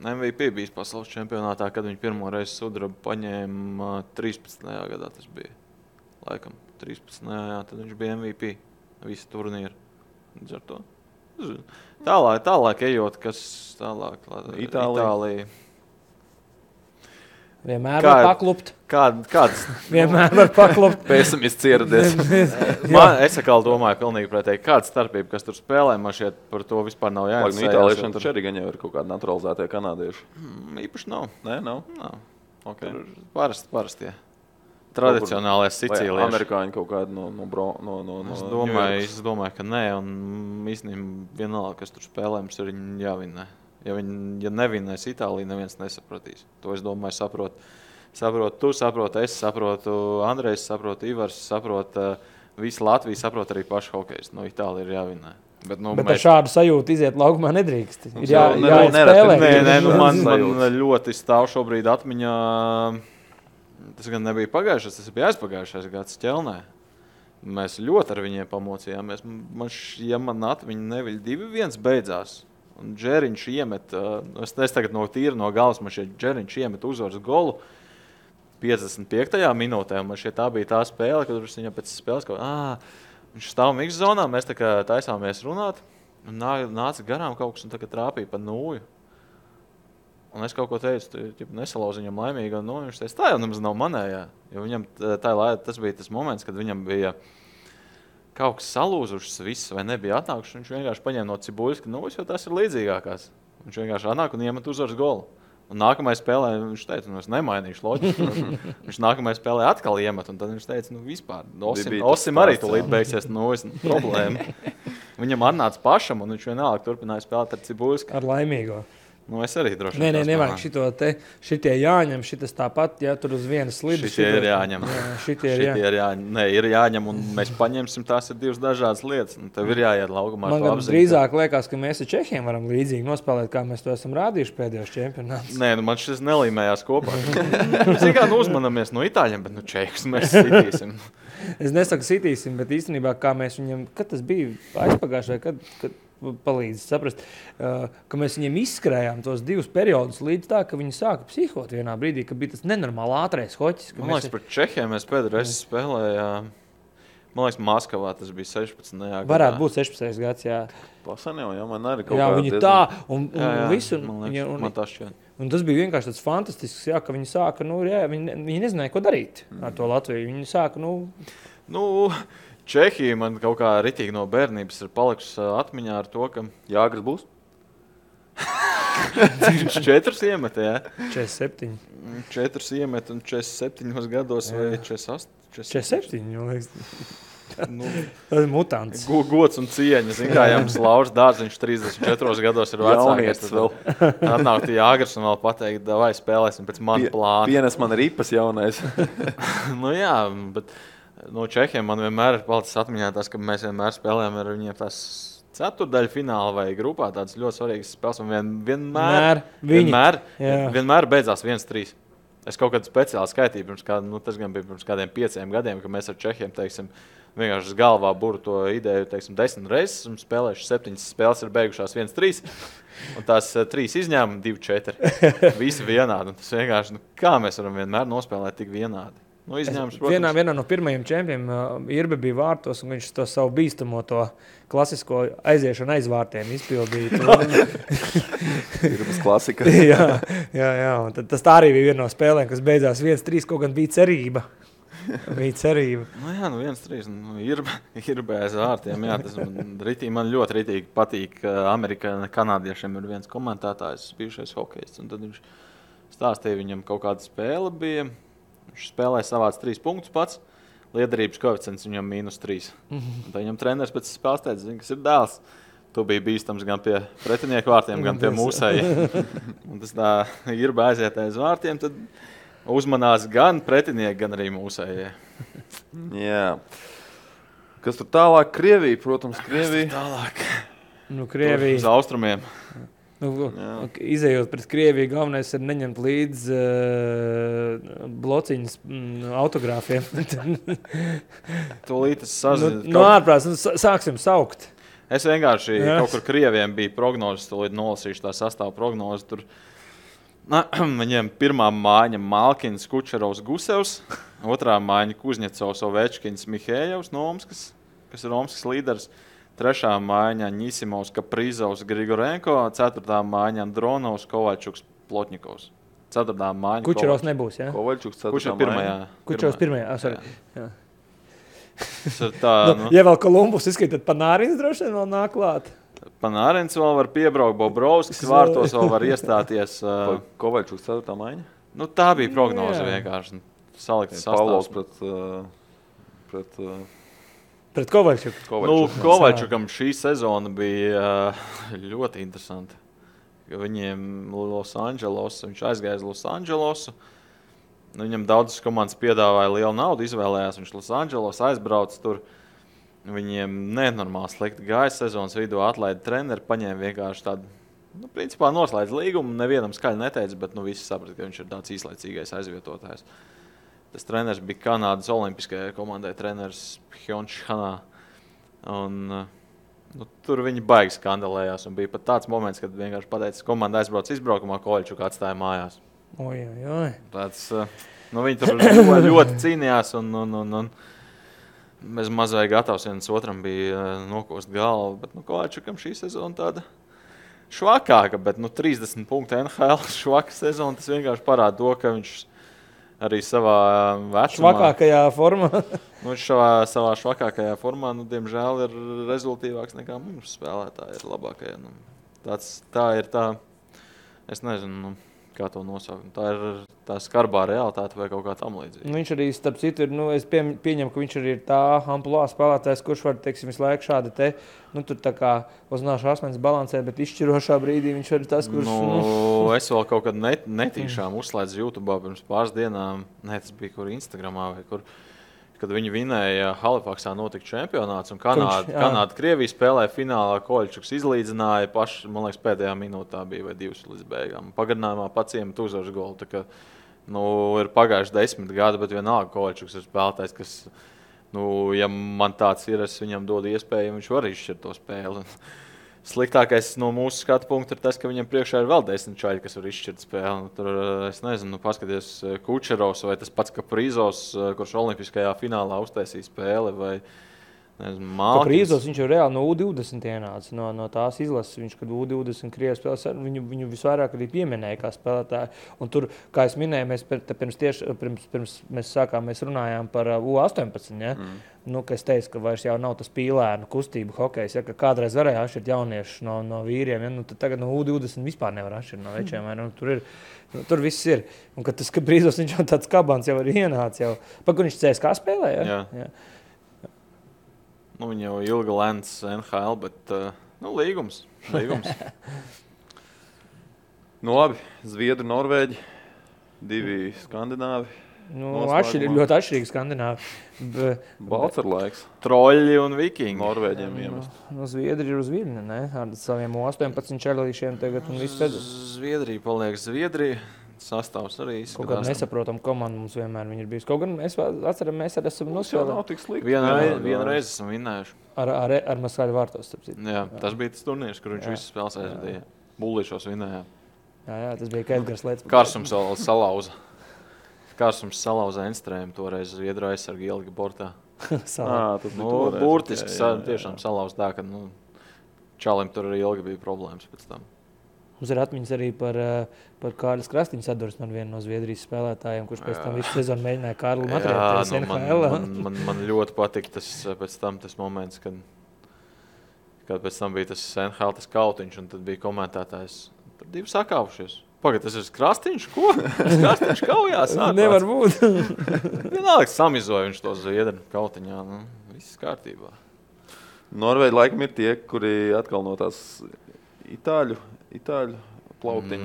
Speaker 3: MVP bijis pasaules čempionātā, kad viņš pirmo reizi sudrabu paņēma 13. gadā tas bija. Laikam 13. Tad viņš bija MVP visu turnīru. Līdz ar to. Tālāk ejot, kas tālāk? Itālija.
Speaker 2: Vienmēr var paklupt.
Speaker 3: Kāds?
Speaker 2: Vienmēr var paklupt.
Speaker 1: Pesimists ieradies.
Speaker 3: Es atkal domāju pilnīgi pretēji. Kāda starpība, kas tur spēlē, man šķiet par to vispār nav jāinteresē.
Speaker 1: Itāliešiem taču arī gan jau ir kaut kādi naturalizētie kanādieši.
Speaker 3: Īpaši nav.
Speaker 1: Nē, nav?
Speaker 3: Nav. Okay. Parastie. Tradicionālais Sicīlieši.
Speaker 1: Amerikāņi kaut kādi no
Speaker 3: Es domāju, ka nē. Un īstenībā vienalga, kas tur spēlē, mums ir jāvinē. Ja nevinēs Itālija, neviens nesapratīs. To es domāju, saprot tu, saprot es, saprotu Andrejs, saprotu Ivars, saprot visi Latvijas, saprot arī paši hokejs. No Itālija ir jāvinē. Bet
Speaker 2: ar šādu sajūtu iziet laukumā nedrīkst. Ir jāspēlē.
Speaker 3: Nē, man ļoti stāv šobrīd atmiņā. Tas gan nebija pagājušais, tas bija aizpagājušais gads Ķelnē. Mēs ļoti ar viņiem pamocījāmies. Man atmiņa neviļ 2-1 beidzās. Un Džeriņš iemet, es tagad no galvas, man šeit Džeriņš iemet uzvaras golu 55. minūtē. Man šeit tā bija tā spēle, kad viņam pēc spēles viņš stāv mix zonā, mēs tā kā taisāmies runāt. Un nāca garām kaut kas un tagad trāpīja pa nūju. Un es kaut ko teicu, nesalauzu viņam laimīgi. Un viņš teica, tā jau nemaz nav manējā. Jo viņam tas bija tas moments, kad viņam bija... kaut kas salūzušas viss, vai nebija atnākuši, viņš vienkārši paņēma no Cibuļska, jo tas ir līdzīgākās. Viņš vienkārši atnāk un iemet uzvaras golu. Un nākamajā spēlē viņš teica, es nemainīšu loģiku. Viņš nākamajā spēlē atkal iemet, un tad viņš teica, vispār, Osim arī tūlīt beigsies, problēma. Viņam atnāca pašam, un viņš vienalga turpināja spēlēt ar Cibuļsku.
Speaker 2: Ar laimīgo.
Speaker 3: Es arī droši vien.
Speaker 2: Nevajag šitie jāņem, šitas tāpat, tur uz vienas slidas.
Speaker 3: Šitie ir jāņem.
Speaker 2: Šitie ir jāņem.
Speaker 3: Nē, ir jāņem, un mēs paņemsim, tās ir divas dažādas lietas. Tev ir jāiet laukumā.
Speaker 2: Man gan drīzāk liekas, ka mēs ar Čehiem varam līdzīgi nospēlēt, kā mēs to esam rādījuši pēdējos čempionātus.
Speaker 3: Nē, man šis nelīmējās kopā. Mēs kā uzmanamies no Itāļiem, bet Čehus mēs sitīsim.
Speaker 2: Es nesaku sitīsim, bet īstenībā, kā mēs viņam, kad tas bija aizpagājuši, vai kad palīdz saprast, ka mēs viņiem izskrējām tos 2 periodus līdz tā, ka viņi sāka psihot vienā brīdī, ka bija tas nenormāli ātrais hoķis.
Speaker 3: Man liekas, par Čehiem mēs pēdējais spēlējām, man liekas, Maskavā tas bija 16. gadā.
Speaker 2: Varētu būt 16. gads, jā.
Speaker 1: Pasan jau, man arī kaut
Speaker 2: kā viņi tā, un visu.
Speaker 3: Man liekas, man tā šķiet.
Speaker 2: Un tas bija vienkārši tāds fantastisks, ka viņi sāka, viņi nezināja, ko darīt ar to Latviju. Viņi sāka,
Speaker 3: Čehija man kaut kā ritīgi no bērnības ir palikusi atmiņā ar to, ka
Speaker 1: Jāgris būs.
Speaker 3: 4 iemet, jā.
Speaker 2: 47.
Speaker 3: 4 iemet un 47 gados vai 48.
Speaker 2: 47, jau liekas. Tas ir mutants.
Speaker 3: Gods un cieņa. Zin kā, jums Lauris Dārziņš 34 gados ir vecākais. Atnākt Jāgars un vēl pateikt, vai spēlēsim pēc mana plāna.
Speaker 1: Pienes man ripas jaunais.
Speaker 3: Jā, bet no Čehiem man vienmēr ir palicis atmiņā tas, ka mēs vienmēr spēlējam ar viņiem tās ceturdaļu fināla vai grupā tādas ļoti svarīgas spēles. Un vienmēr beidzās 1-3. Es kaut kādu speciālu skaitīju, tas gan bija pirms kādiem 5 gadiem, ka mēs ar Čehiem, teiksim, vienkārši galvā buru to ideju, teiksim, 10 reizes un spēlējuši 7 spēles ir beigušās 1-3. Un tās 3 izņēmumi 2-4. Visi vienādi. Un tas vienkārši, kā mēs varam vienmēr nospēlēt tik vienādi? Nu, izņēmums,
Speaker 2: vienā no pirmajiem čempiem Irbe bija vārtos, un viņš to savu bīstamo to klasisko aiziešanu aiz vārtiem izpildīja.
Speaker 1: Irbes klasika.
Speaker 2: jā. Un tas tā arī bija viena no spēlēm, kas beidzās 1-3, kaut gan bija cerība.
Speaker 3: Nu jā, 1-3. Irbe aiz vārtiem. Jā, tas man ļoti ritīgi patīk. Amerikā kanādiešiem ir viens komentētājs, bijušais hokejists, un tad viņš stāstīja, viņam kaut kāda spēle bija. Viņš spēlēja savāds 3 punktus pats. Liederības koeficients viņam -3. Tad viņam treneris pēc spēles teica, kas ir dēls. Tu biji bīstams gan pie pretinieku vārtiem, gan pie mūsējiem. Un tas tā ir aiziet aiz vārtiem, tad uzmanās gan pretinieki, gan arī mūsējie.
Speaker 1: Jā. Kas tur tālāk? Krievija, protams, Krievija.
Speaker 3: Tālāk.
Speaker 2: Krievija.
Speaker 3: Uz austrumiem.
Speaker 2: Izejot pret Krieviju, galvenais ir neņemt līdzi blociņas autogrāfiem.
Speaker 3: Tūlīt es sazinu.
Speaker 2: Ārprāts, sāksim saukt.
Speaker 3: Es vienkārši kaut kur Krieviem bija prognozes, tūlīt nolasīšu tā sastāvu prognozi. Tur viņiem pirmā mājiņa Malkins, Kučerovs, Gusevs, otrā mājiņa Kuzņecovs, Ovečkins, Mihējevs no Omskas, kas ir Omskas līderis. Trešā mājiņa Ņisimovs, Kaprizovs, Grigorenko, ceturtā mājiņa Andronovs, Kovaļčuks, Plotņikovs. Ceturtā mājiņa
Speaker 2: Kučerovs nebūs, jā?
Speaker 1: Kovaļčuks ceturtā
Speaker 3: pirmajā.
Speaker 2: Kučerovs pirmajā, jā.
Speaker 3: Tā,
Speaker 2: ja vēl Kolumbus izskatīt, tad Panārins droši vien vēl nāk klāt.
Speaker 3: Panārins vēl var piebraukt, Bobrovskis vārtos vēl var iestāties.
Speaker 1: Kovaļčuks ceturtā mājiņa?
Speaker 3: Nu, tā bija prognoze vienkārši. Salikts sastāvs.
Speaker 1: Pret
Speaker 2: Pret Kovaļčuku.
Speaker 3: Kovaļčukam šī sezona bija ļoti interesanta. Viņiem viņš aizgāja uz Losandželosu. Viņam daudzas komandas piedāvāja lielu naudu, izvēlējās. Viņš Losandželos aizbrauc tur. Viņiem nenormāli slikti gāja sezonas vidū, atlaida treneri, paņēma vienkārši tādu, principā noslēdz līgumu. Nevienam skaļi neteica, bet visi saprata, ka viņš ir tāds īslaicīgais aizvietotājs. Tas treneris bija Kanādas olimpiskajai komandai, treneris Pjončs Hanā. Un, tur viņi baigi skandalējās. Un bija pat tāds moments, kad vienkārši pateica, komanda aizbrauc izbraukumā, Kovaļčuku atstāja mājās.
Speaker 2: Oi.
Speaker 3: Tāds, viņi tur ļoti cīnījās un mēs mazai gatavs viens otram bija nokost galvu. Bet Kovaļčukam šī sezona tāda švakāka, bet 30 punktu NHL švaka sezona, tas vienkārši parāda to, ka viņš arī savā vecumā.
Speaker 2: Švakākajā formā.
Speaker 3: Viņš savā švakākajā formā, diemžēl, ir rezultīvāks nekā mums spēlētāji ir labākajā. Tā ir tā, es nezinu, kā to nosaukt. Tā ir tā skarbā realitāte vai kaut kā tam līdzīga.
Speaker 2: Viņš arī, starp citu, es pieņemu, ka viņš arī ir tā amplua spēlētājs, kurš var, teiksim, visu laiku šādi tur tā kā uznāšu asmenis balansē, bet izšķirošā brīdī viņš ir tas, kurš...
Speaker 3: Es vēl kaut kad netīšām uzslēdzu YouTube pirms pāris dienām, tas bija kur Instagramā vai kur, kad viņi vinēja Halifaksā notika čempionāts un Kanāda Krievija spēlēja finālā, Kovaļčuks izlīdzināja paši, man liekas, pēdējā minūtā bija vai 2 līdz beigām. Pagarinājumā pats iemet uzvaras golu, tā kā, ir pagājuši 10 gadi, bet vienalga Kovaļčuks ir spēlētājs, kas, ja man tāds ir, es viņam dodu iespēju, viņš var izšķirt to spēli. Sliktākais no mūsu skatu punkta ir tas, ka viņam priekšā ir vēl 10 čaļi, kas var izšķirt spēli. Tur, es nezinu, paskaties Kučerovs vai tas pats Kaprizovs, kurš olimpiskajā finālā uztaisīja spēli, vai Malkins.
Speaker 2: Kaprizovs, viņš jau reāli no U20 ienāca, no tās izlases. Viņš, kad U20 Krievijas spēlēs, viņu visvairāk arī pieminēja kā spēlētāju. Un tur, kā es minēju, mēs runājām par U18, ja? Ka es teicu, ka vairs jau nav tas pīlēnu kustību hokejs, ja? Ka kādreiz varēja atšķirt jauniešus no vīriem, ja? Tad tagad no U20 vispār nevar atšķirt no večiem. Tur viss ir. Un kad tas Kaprizovs, viņš jau tāds kabans jau ir ienācis. Kur viņš CSKA spēlē? Ja?
Speaker 3: Jā. Nu, viņa jau ilgi lēns NHL, bet līgums.
Speaker 1: Nu, labi, Zviedri, Norvēģi, 2 skandināvi.
Speaker 2: Ļoti atšķirīgi skandināvi.
Speaker 1: Balts ar laiks.
Speaker 3: Troļļi un vikingi.
Speaker 1: Norvēģiem iemest.
Speaker 2: Zviedri ir uz viļņa, ne? Ar saviem 18 čelīšiem tagad un viss pēc.
Speaker 3: Zviedrija paliek Zviedrija. Sastāvs arī izskatās.
Speaker 2: Kaut kāda nesaprotam komanda mums vienmēr ir bijusi. Kaut gan mēs atceram, mēs arī esam
Speaker 1: nospēlējuši.
Speaker 3: Vienu reizi esam vinnējuši.
Speaker 2: Ar Maskaļu vārtos, starp citu.
Speaker 3: Jā, tas bija tas turnīrs, kur viņš visas spēles aizvadīja. Bullīšos vinnējām.
Speaker 2: Jā, tas bija Edgars Lietas.
Speaker 3: Kārsums salauza Enstrēmu, toreiz Zviedru aizsargi ielika bortā.
Speaker 1: Burtiski
Speaker 3: tiešām salauza tā, ka Čalim tur arī ilgi bija problēmas pēc tam.
Speaker 2: Mums ir atmiņas arī par Kārlis Krastiņu sadursmi ar vienu no Zviedrijas spēlētājiem, kurš pēc tam visu sezonu mēģināja Kārli matriēties NHL.
Speaker 3: Man ļoti patika tas moments, kad pēc tam bija tas NHL, tas kautiņš, un tad bija komentētājs. Tur 2 sakāvušies. Pagad, tas ir Krastiņš? Ko? Krastiņš kaujās?
Speaker 2: Nevar būt.
Speaker 3: Vienalga samizoja viņš to Zviedru kautiņā. Viss kārtībā.
Speaker 1: Norvēģi laikam ir tie, kuri atkal no tās itāļu plauktiņu.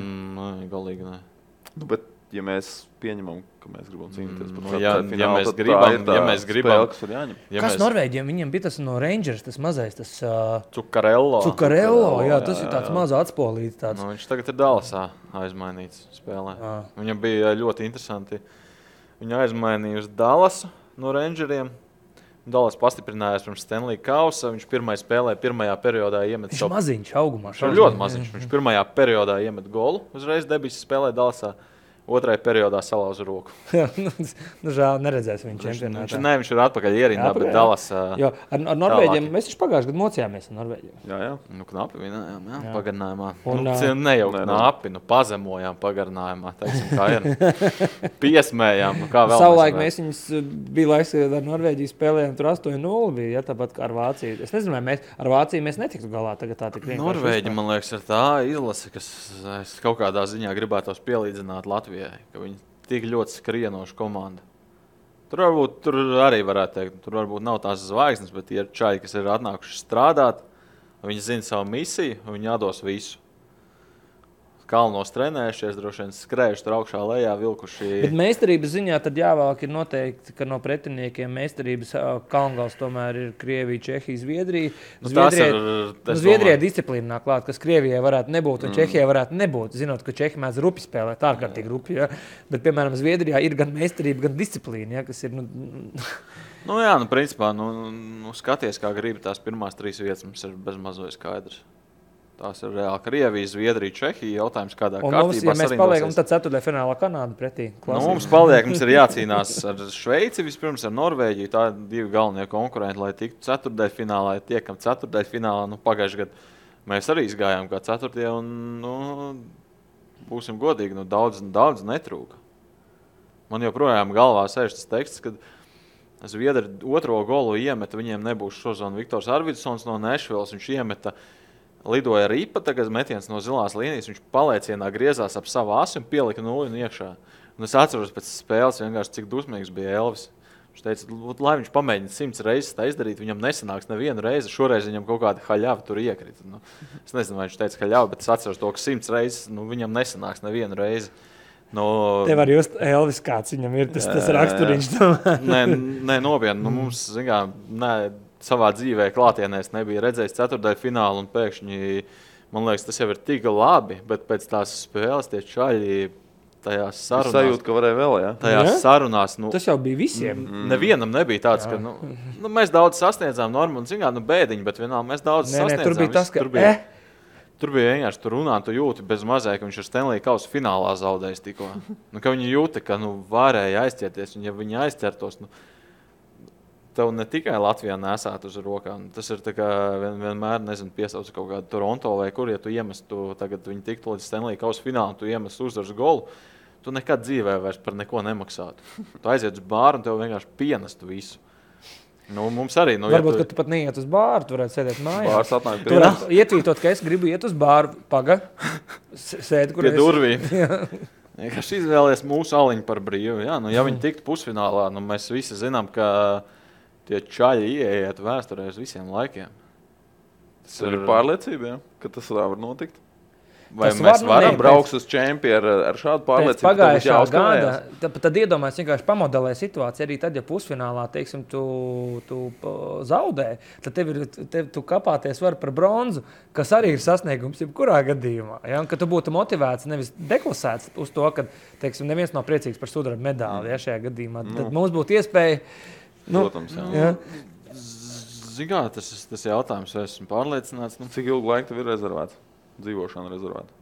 Speaker 3: Galīgi ne.
Speaker 1: Bet, ja mēs pieņemam, ka mēs gribam cīnīties par
Speaker 3: finālu, ja mēs gribam,
Speaker 2: kas Norvēģiem? Viņiem bija tas no Rangers, tas mazais, tas
Speaker 3: Cukarello,
Speaker 2: jā, tas ir tāds maz atspolīts.
Speaker 3: Viņš tagad ir Dallasā aizmainīts spēlē. Viņam bija ļoti interesanti. Viņa aizmainīja uz Dallasu no Rangeriem. Dallas pastiprinājās pirms Stanley Kausa. Viņš pirmajā periodā iemet
Speaker 2: savu... Viņš maziņš augumā.
Speaker 3: Viņš ir ļoti maziņš. Viņš pirmajā periodā iemet golu. Uzreiz debises spēlē Dallasā. Otrajā periodā salauza roku.
Speaker 2: Žēl, neredzēs viņu čempionātā.
Speaker 3: Viņš ir atpakaļ ierindā, bet Dallas...
Speaker 2: Jo, ar Norvēģiem mēs taču pagājuši gadu mocījāmies ar Norvēģiem.
Speaker 1: Jā.
Speaker 3: Knapi vinējām, pagarinājumā. Knapi, pazemojām pagarinājumā, teiksim, kā ir. Piesmējām, kā vēl.
Speaker 2: Savulaik mēs viņus bija laiks, kad ar Norvēģiju spēlējām, tur 8-0 bija, tāpat kā ar Vāciju. Es nezinu, vai ar Vāciju mēs netiktu galā tagad tā tik vienkārši.
Speaker 3: Norvēģi, man liekas, ir tā izlase, kas kaut kādā ziņā gribētos pielīdzināt Latvijai. Ka viņi tik ļoti skrienoša komanda. Tur arī varētu teikt, tur varbūt nav tās zvaigznes, bet ir čaļi, kas ir atnākuši strādāt, viņi zina savu misiju, viņi atdos visu. Kalnos trenējušies, droši vien skrējuši tur augšā lejā, vilkuši...
Speaker 2: Bet meistarības ziņā tad jāvēlk ir noteikti, ka no pretiniekiem meistarības kalngals tomēr ir Krievija, Čehija, Zviedrija. Zviedrijai disciplīna nāk klāt, kas Krievijai varētu nebūt un Čehijai varētu nebūt, zinot, ka Čehi mēdz rupi spēlēt, ārkārtīgi rupi, ja? Bet, piemēram, Zviedrijā ir gan meistarība, gan disciplīna, ja? Kas ir...
Speaker 3: principā, skaties, kā gribi tās pirmās 3 vietas, mums ir bezmazoja skaidrs. Tās ir reāli Krievija, Zviedrija, Čehija. Jautājums, kādā kārtībā
Speaker 2: mums, ja mēs paliekam, tad 4. finālā Kanāda pretī.
Speaker 3: Mums ir jācīnās ar Šveici, vispirms ar Norvēģiju. Tā ir 2 galvenie konkurenti, lai tiktu 4. finālā, ja tiekam 4. finālā. Pagājušajā gadā mēs arī izgājām kā 4. un būsim godīgi, daudz netrūka. Man joprojām galvā sēž tas teksts, kad Zviedri 2. golu iemeta, viņiem nebūs šozon Viktors Arvidsons no Nešvilas, viņš iemeta. Lidoja ripa, tagad metiens no zilās līnijas, viņš paliecienā griezās ap savu asi un pielika 0 iekšā. Un es atceros pēc spēles vienkārši, cik dusmīgs bija Elvis. Viņš teica, lai viņš pamēģina 100 reizes tā izdarīt, viņam nesanāks nevienu reizi, šoreiz viņam kaut kāda haļava tur iekrita. Es nezinu, vai viņš teica haļava, bet es atceros to, ka 100 reizes viņam nesanāks nevienu reizi.
Speaker 2: Tev var just Elvis, kāds viņam ir, tas raksturiņš.
Speaker 3: Nē, nopietni, mums, savā dzīvē klātienēs nebija redzējis 4. finālu un pēkšņi, man liekas, tas jau ir tik labi, bet pēc tās spēles tie čaļi tajās sarunās...
Speaker 1: Sajūt, ka varēja vēl, jā?
Speaker 3: Tajās sarunās...
Speaker 2: Tas jau bija visiem.
Speaker 3: Nevienam nebija tāds, ka mēs daudz sasniedzām normu un zingā, bēdiņi, bet vienalga mēs daudz sasniedzām.
Speaker 2: Tur bija tas, ka...
Speaker 3: Tur bija vienkārši, tu runā, tu jūti bez mazai, ka viņš ar Stanley Kausa finālā zaudējis tikko. Ka viņi jūta, ka varēja aizķerties, un ja viņi aizķertos... Tev ne tikai Latvijā nesāt uz rokām. Tas ir tā kā vienmēr, piesauc kaut kādu Toronto vai kur, ja tu iemestu, tagad viņi tiktu līdz Stanley Kausa finālu, tu iemestu uzvaras golu, tu nekad dzīvē vairs par neko nemaksātu. Tu aiziet uz bāru un tev vienkārši pienestu visu. Mums arī...
Speaker 2: Varbūt, ka tu pat neiet uz bāru, tu varētu sēdēt mājās.
Speaker 1: Bārs atnāk
Speaker 2: pie mums. Ietvītot, ka es gribu iet uz bāru, sēdi, kur
Speaker 3: pie durvīm. Vienkārši izvēlies mūsu aliņu par brīvu. Ja viņi tiktu pusfinālā, mēs visi zinām, ka tie čaļi ieiet vēsturē uz visiem laikiem.
Speaker 1: Tas ir pārliecība, ka tas var notikt.
Speaker 3: Vai tas mēs varam
Speaker 1: braukt uz čempionu ar šādu pārliecību?
Speaker 2: Pagājušā gada, tad iedomājies vienkārši pamodelē situāciju. Arī tad, ja pusfinālā, teiksim, tu zaudē, tad tu kapāties var par bronzu, kas arī ir sasniegums jebkurā gadījumā. Ja? Un, ka tu būtu motivēts, nevis deklasēts uz to, ka, teiksim, neviens nav priecīgs par sudraba medāli, ja, šajā gadījumā. Tad mums būtu iespēja...
Speaker 1: Protams,
Speaker 2: jā.
Speaker 3: Zigā, tas jautājums, vai esmu pārliecināts.
Speaker 1: Cik ilgu laiku tev ir rezervēts? Dzīvošana rezervēta.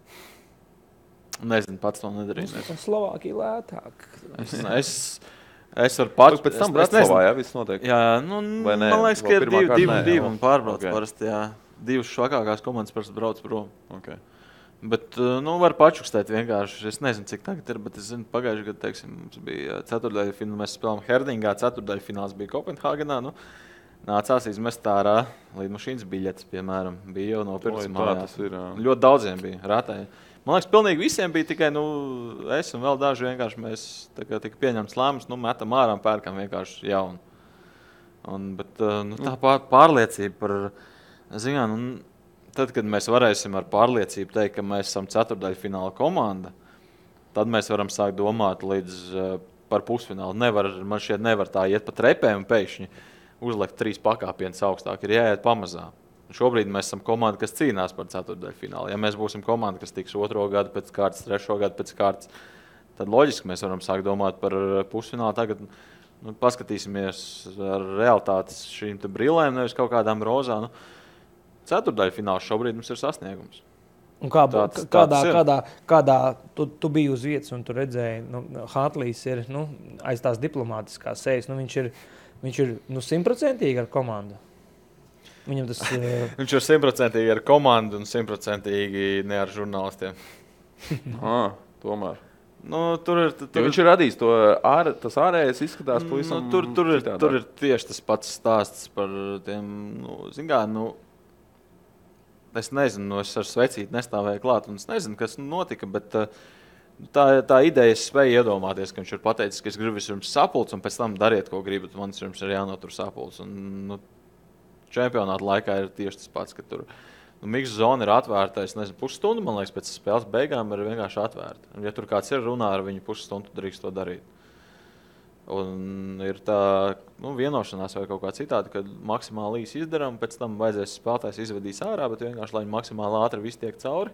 Speaker 3: Nezinu, pats to nedarīju.
Speaker 2: Slovākija lētāk.
Speaker 3: Es varu pats.
Speaker 1: Pēc tam Bratislavā, jā, viss notiek.
Speaker 3: Jā, nu, man liekas, ka ir divi un pārbrauc parasti, jā. Divas švakākās komandas parasti brauc prom.
Speaker 1: Okay.
Speaker 3: Bet, var pačukstēt vienkārši. Es nezinu, cik tagad ir, bet es zinu, pagājuši gadu, teiksim, mums bija ceturtdaļfināls, mēs spēlējām Herdingā, ceturtdaļfināls bija Kopenhāgenā, nācās izmest ārā lidmašīnas biļetes, piemēram, bija jau nopirkts mājās. Ļoti daudziem bija rātēji. Man liekas, pilnīgi visiem bija tikai, es un vēl daži vienkārši mēs tika pieņemts lēmums, metam ārā un pērkam vienkārši jaunu. Bet tā pārliecība par, tad, kad mēs varēsim ar pārliecību teikt, ka mēs esam ceturtdaļfināla komanda, tad mēs varam sākt domāt līdz par pusfinālu. Man šķiet nevar tā iet pa trepēm un pēkšņi uzlikt 3 pakāpienus augstāk, ir jāiet pamazām. Šobrīd mēs esam komanda, kas cīnās par ceturtdaļfinālu. Ja mēs būsim komanda, kas tiks 2. gadu pēc kārtas, 3. gadu pēc kārtas, tad loģiski mēs varam sākt domāt par pusfinālu. Tagad paskatīsimies ar realitātes šīm te brillēm, nevis kaut kādām rozām. Ceturtdaļfināls šobrīd mums ir sasniegums.
Speaker 2: Un kādā tu biji uz vietas un tu redzēji, Hartlīs ir aiz tās diplomātiskās sejas, viņš ir 100% ar komandu. Viņam tas
Speaker 3: Viņš ir 100% ar komandu un 100% ne ar žurnālistiem.
Speaker 1: Tomēr.
Speaker 3: Tur
Speaker 1: viņš ir radījis to, tas ārējais izskatās pavisam
Speaker 3: tur ir tieši tas pats stāsts par tiem, es nezinu, es ar svecīti nestāvēju klāt un es nezinu, kas notika, bet tā ideja es spēju iedomāties, ka viņš ir pateicis, ka es gribu jums sapulci un pēc tam dariet, ko gribat, man jums ir jānotur sapulci. Un, čempionāta laikā ir tieši tas pats, ka tur miksa zona ir atvērta, es nezinu, pusstundu, man liekas, pēc spēles beigām ir vienkārši atvērta. Un, ja tur kāds ir runā ar viņu pusstundu, drīkst to darīt. Un ir tā vienošanās vai kaut kā citādi, kad maksimāli īsi izdarām, pēc tam vajadzēs spēlētājs izvedīs ārā, bet vienkārši, lai maksimāli ātri viss tiek cauri.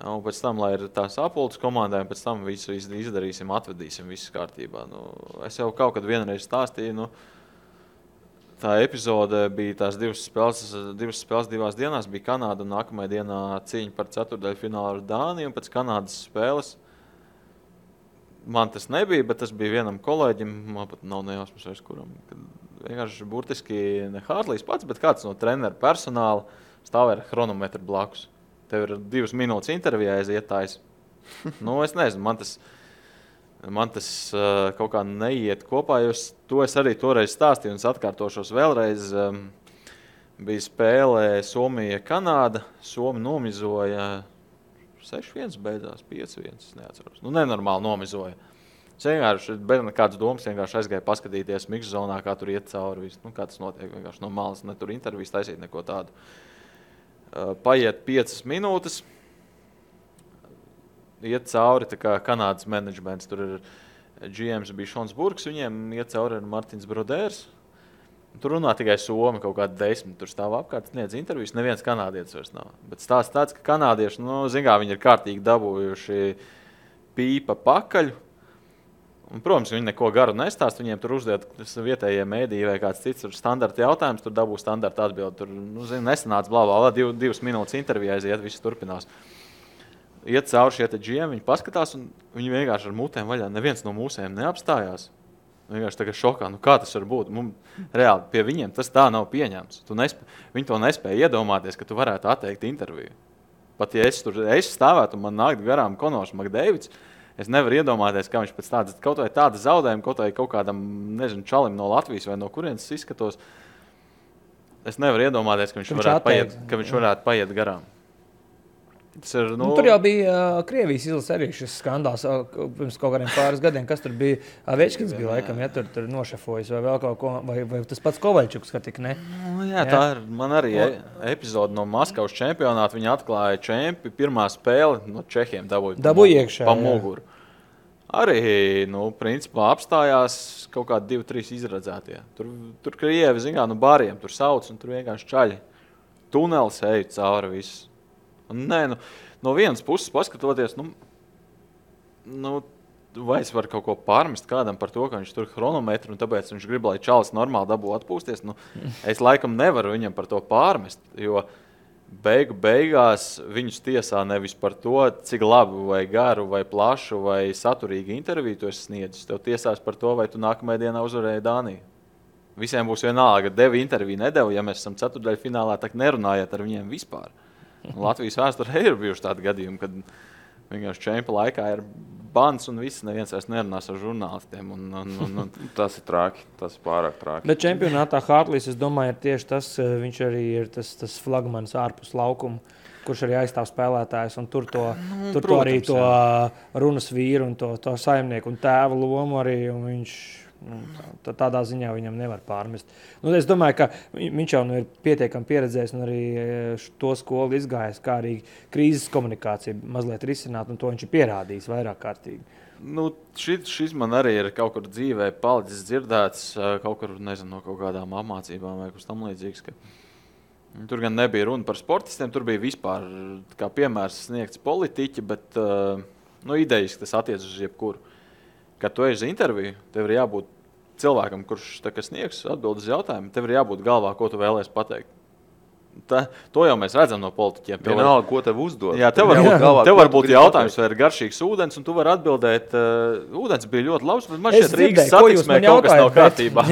Speaker 3: Un pēc tam, lai ir tā sapulces komandai, un pēc tam visu izdarīsim, atvedīsim, viss kārtībā. Es jau kaut kad vienreiz stāstīju, tā epizode bija tās divas spēles 2 dienās, bija Kanāda un nākamajā dienā cīņa par ceturtdaļfinālu ar Dāniju, un pēc Kanādas spēles man tas nebija, bet tas bija vienam kolēģim, man pat nav nejausmas vairs kuram, kad vienkārši burtiski ne Hartlīs pats, bet kāds no treneru personāla stāvēja ar chronometru blakus. Tev ir 2 minūtes intervijā aizietājs. Es nezinu, man tas kaut kā neiet kopā, jo to es arī toreiz stāstīju un es atkārtošos vēlreiz. Bija spēlē Somija-Kanāda, Somi nomizoja 6-1 beidzās, 5-1, neatceros. Nenormāli nomizoja. Es vienkārši, bez nekādas domas, vienkārši aizgāju paskatīties miksa zonā, kā tur iet cauri visu. Kā tas notiek, vienkārši no malas, ne tur intervijas taisīt neko tādu. Paiet 5 minūtes. Iet cauri tā kā Kanādas menedžments, tur ir GMs bija Šons Burks, viņiem iet cauri ir Martins Brodērs. Tur runā tikai Somi, kaut kādi 10, tur stāv apkārt, sniedz intervijas, neviens kanādietis vairs nav. Bet stāsts tāds, ka kanādieši, viņi ir kārtīgi dabūjuši pīpa pakaļ. Un, protams, viņi neko garu nestāst, viņiem tur uzdod vietējie mēdīji vai kāds cits standarta jautājums, tur dabū standarta atbildi. Tur, nesanāca blā, 2 minūtes intervijā aiziet, viss turpinās. Iet cauri šie te GM, viņi paskatās un viņi vienkārši ar mutēm vaļā, neviens no mūsējiem neapstājās. Vienkārši tagad šokā, kā tas var būt? Reāli pie viņiem tas tā nav pieņemts. Viņi to nespēja iedomāties, ka tu varētu atteikt interviju. Pat ja es stāvētu un man nākt garām Konors Makdēvids, es nevaru iedomāties, kā viņš pēc kaut vai tāda zaudējuma, kaut kādam, čalim no Latvijas vai no kurienes izskatos. Es nevaru iedomāties, ka viņš varētu paiet garām.
Speaker 2: Tur jau bija Krievijas izlase arī šis skandāls pirms kaut kādiem pāris gadiem, kas tur bija. Večkins bija laikam, ja tur nošefojis vai vēl kaut ko, vai tas pats Kovaļčuks, ka tik ne.
Speaker 3: Tā ir man arī epizode no Maskavas čempionāta. Viņi atklāja čempi, pirmā spēle no Čehiem dabūja
Speaker 2: iekšā,
Speaker 3: pa muguru. Arī, principā apstājās kaut kādi 2-3 izradzētie. Tur Krievi, bāriem tur sauc un tur vienkārši čaļi. Tunelis eju cauri visu. Nē, no vienas puses paskatoties, vai es varu kaut ko pārmest kādam par to, ka viņš tur chronometru un tāpēc viņš grib, lai čalis normāli dabū atpūsties. Es laikam nevaru viņam par to pārmest, jo beigās viņus tiesā nevis par to, cik labu vai garu vai plašu vai saturīgu interviju tu esi sniedzis. Tev tiesās par to, vai tu nākamajā dienā uzvarēji Dāniju. Visiem būs vienalga, deva interviju, nedeva, ja mēs esam ceturtdaļfinālā, tak nerunājiet ar viņiem vispār. Latvijas vēsturē ir bijuši tādi gadījumi, kad vienkārši čempa laikā ir bans un viss, neviens vairs nerunās ar žurnālistiem.
Speaker 1: Tas ir traki, tas ir pārāk traki.
Speaker 2: Bet čempionātā Hartlīs, es domāju, ir tieši tas, viņš arī ir tas flagmanis ārpus laukuma, kurš arī aizstāv spēlētājs un tur arī to runas vīru un to saimnieku un tēva lomu arī, un viņš... tādā ziņā viņam nevar pārmest. Es domāju, ka viņš jau ir pietiekami pieredzējis un arī to skolu izgājis, kā arī krīzes komunikācija mazliet risināt, un to viņš ir pierādījis vairāk kārtīgi.
Speaker 3: Šis man arī ir kaut kur dzīvē palicis dzirdēts, kaut kur, nezinu, no kaut kādām apmācībām vai kas tam līdzīgs, ka tur gan nebija runa par sportistiem, tur bija vispār kā piemērs sniegts politiķi, bet idejas, tas attiec uz jebkuru. Kad tu ej uz interviju, tev ir jābūt cilvēkam, kurš sniegs atbild uz jautājumu, tev ir jābūt galvā, ko tu vēlies pateikt. To jau mēs redzam no politiķiem.
Speaker 1: Vienalga, ko tev uzdod.
Speaker 3: Jā, tev var būt jautājums, vai ir garšīgs ūdens, un tu vari atbildēt, ūdens bija ļoti labs, bet man šeit Rīgas satiksmē kaut kas nav kārtībā.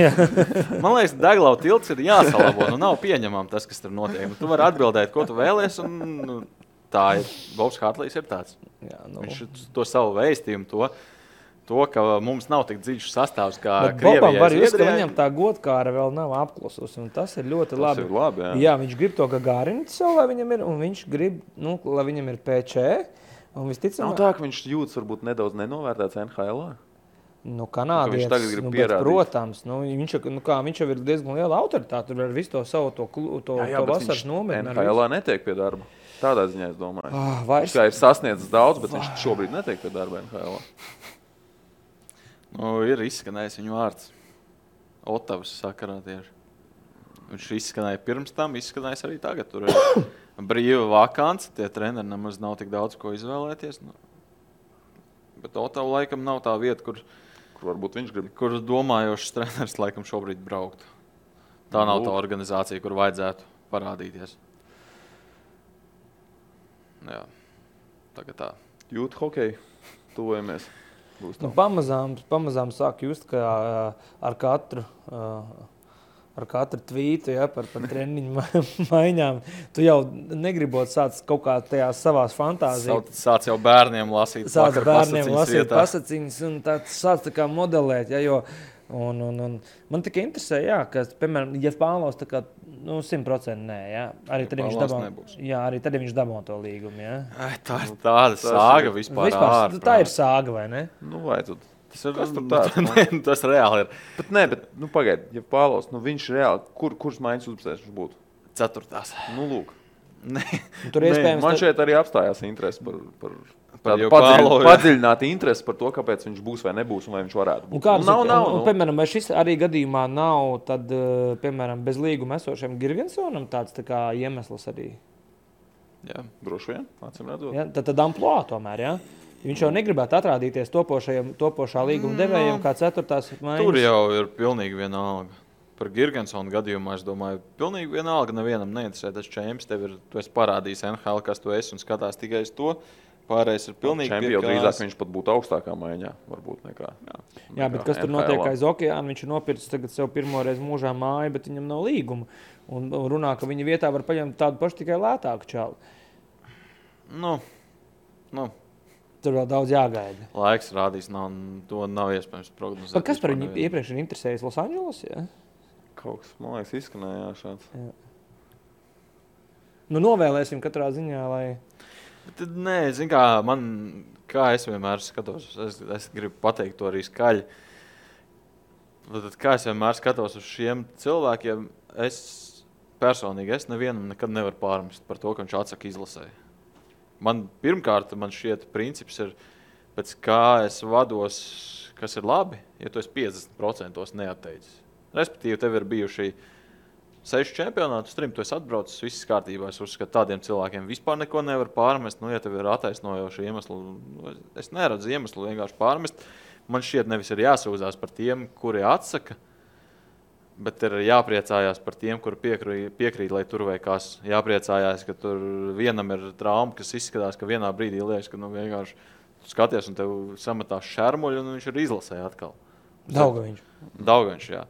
Speaker 3: Man liekas, Deglau tilts ir jāsalabo, nav pieņemam tas, kas tur notiek. Tu vari atbildēt, ko tu vēlies, un tā ir. Bobs Hartlīs ir tāds. Viņš to savu vēstījumu, to, ka mums nav tik dziļš sastāvs kā Krievijai.
Speaker 2: Bobam var just, ka viņam tā godkāra vēl nav apklususi, un tas ir ļoti labi.
Speaker 1: Tas ir labi, jā.
Speaker 2: Jā, viņš grib to Gagārinu sev, lai viņam ir, un viņš grib, lai viņam ir PC, un visticamāk...
Speaker 1: Nav tā, ka viņš jūtas varbūt nedaudz nenovērtēts NHL-ā?
Speaker 2: Kanādietis,
Speaker 1: tagad grib pierādīt.
Speaker 2: Protams, viņš jau ir diezgan liela autoritāte, tur ar visu to savu to vasaras nometni.
Speaker 1: NHL-ā netiek pie darba. Tādā ziņā es domāju. Viņš kā ir sasniedzis daudz, bet viņš šobrīd netiek pie darba NHL-ā.
Speaker 3: Ir izskanējis viņu vārds. Otavas sakarā tieši. Viņš izskanēja pirms tam, izskanējis arī tagad. Tur ir brīva vakance, tie treneri nemaz nav tik daudz ko izvēlēties. Bet Otava laikam nav tā vieta, kur
Speaker 1: varbūt viņš grib.
Speaker 3: Kur domājošs treneris laikam šobrīd braukt. Tā nav tā organizācija, kur vajadzētu parādīties. Jā, tagad tā.
Speaker 1: Jūt hokeju, tuvojamies.
Speaker 2: Pamazām sāk just, ka ar katru tvītu par treniņu maiņām tu jau negribot sāc kaut kā tajās savās fantāzijas.
Speaker 3: Sāc jau bērniem lasīt
Speaker 2: pasaciņas un sāc tā kā modelēt, jo un man tikai interesē, ka, piemēram, ja Pāvlovs tā kā 100% nē, arī tad viņš dabū to līgumu,
Speaker 3: Tā ir tāda sāga vispār ārprāt.
Speaker 2: Tā ir sāga, vai ne?
Speaker 1: Vai tu?
Speaker 3: Kas tur tāds? Tas reāli ir.
Speaker 1: Bet pagaid, ja Pāvlovs, viņš reāli, kuras maiņas uzbūsēs viņš būtu?
Speaker 3: 4.
Speaker 1: Lūk.
Speaker 2: Man
Speaker 1: šeit arī apstājās interesi par padziļināti interesi par to, kāpēc viņš būs vai nebūs un vai viņš varētu būt.
Speaker 2: Piemēram, vai šis arī gadījumā nav, tad, piemēram, bez līguma esošiem Girgensonam tāds tā kā iemesls arī?
Speaker 1: Jā, droši vien, acīm redzot.
Speaker 2: Tad amploā tomēr, Viņš jau negribētu atrādīties topošā līguma devējiem kā 4. maiņas.
Speaker 3: Tur jau ir pilnīgi vienalga. Par Girgensonu gadījumā, es domāju, pilnīgi vienalga nevienam neinteresē tas čemps. Tu esi parādījis NHL, kas tu esi un skatās tikai uz to. Pārējais ir pilnīgi
Speaker 1: čempi, jau drīzāk viņš pat būtu augstākā maiņā, varbūt nekā.
Speaker 2: Jā, bet kas tur notiek aiz okeāna? Viņš ir nopircis tagad sev pirmoreiz mūžā māju, bet viņam nav līguma. Un runā, ka viņa vietā var paņemt tādu pašu tikai lētāku čalu. Tur vēl daudz jāgaida.
Speaker 3: Laiks rādīs, to nav iespējams prognozēt.
Speaker 2: Kas par viņu iepriekš ir interesējis Losandželos,
Speaker 1: Kaut kas, man liekas, izskanēja šāds.
Speaker 2: Novēlēsim katrā ziņā, lai...
Speaker 3: Nē, zin kā es vienmēr skatos, es gribu pateikt to arī skaļi. Tad, kā es vienmēr skatos uz šiem cilvēkiem, es personīgi nevienam nekad nevaru pārmest par to, ka viņš atsaka izlasē. Pirmkārt, man šķiet princips ir, pēc kā es vados, kas ir labi, ja tu esi 50% neatteicis. Respektīvi, tev ir bijuši 6 čempionāti, uz 3 tu esi atbraucis, viss kārtībā. Es uzskatu, tādiem cilvēkiem vispār neko nevar pārmest. Ja tev ir attaisnojoši iemesli, es neredzu iemeslu vienkārši pārmest. Man šķiet, nevis ir jāsūdzās par tiem, kuri atsaka, bet ir jāpriecājās par tiem, kuri piekrīt, lai tur vai kas. Jāpriecājās, ka tur vienam ir trauma, kas izskatās, ka vienā brīdī liekas, ka vienkārši tu skaties un tev sametās šermuļi un viņš ir izlasē atkal. Daugaviņš, jā.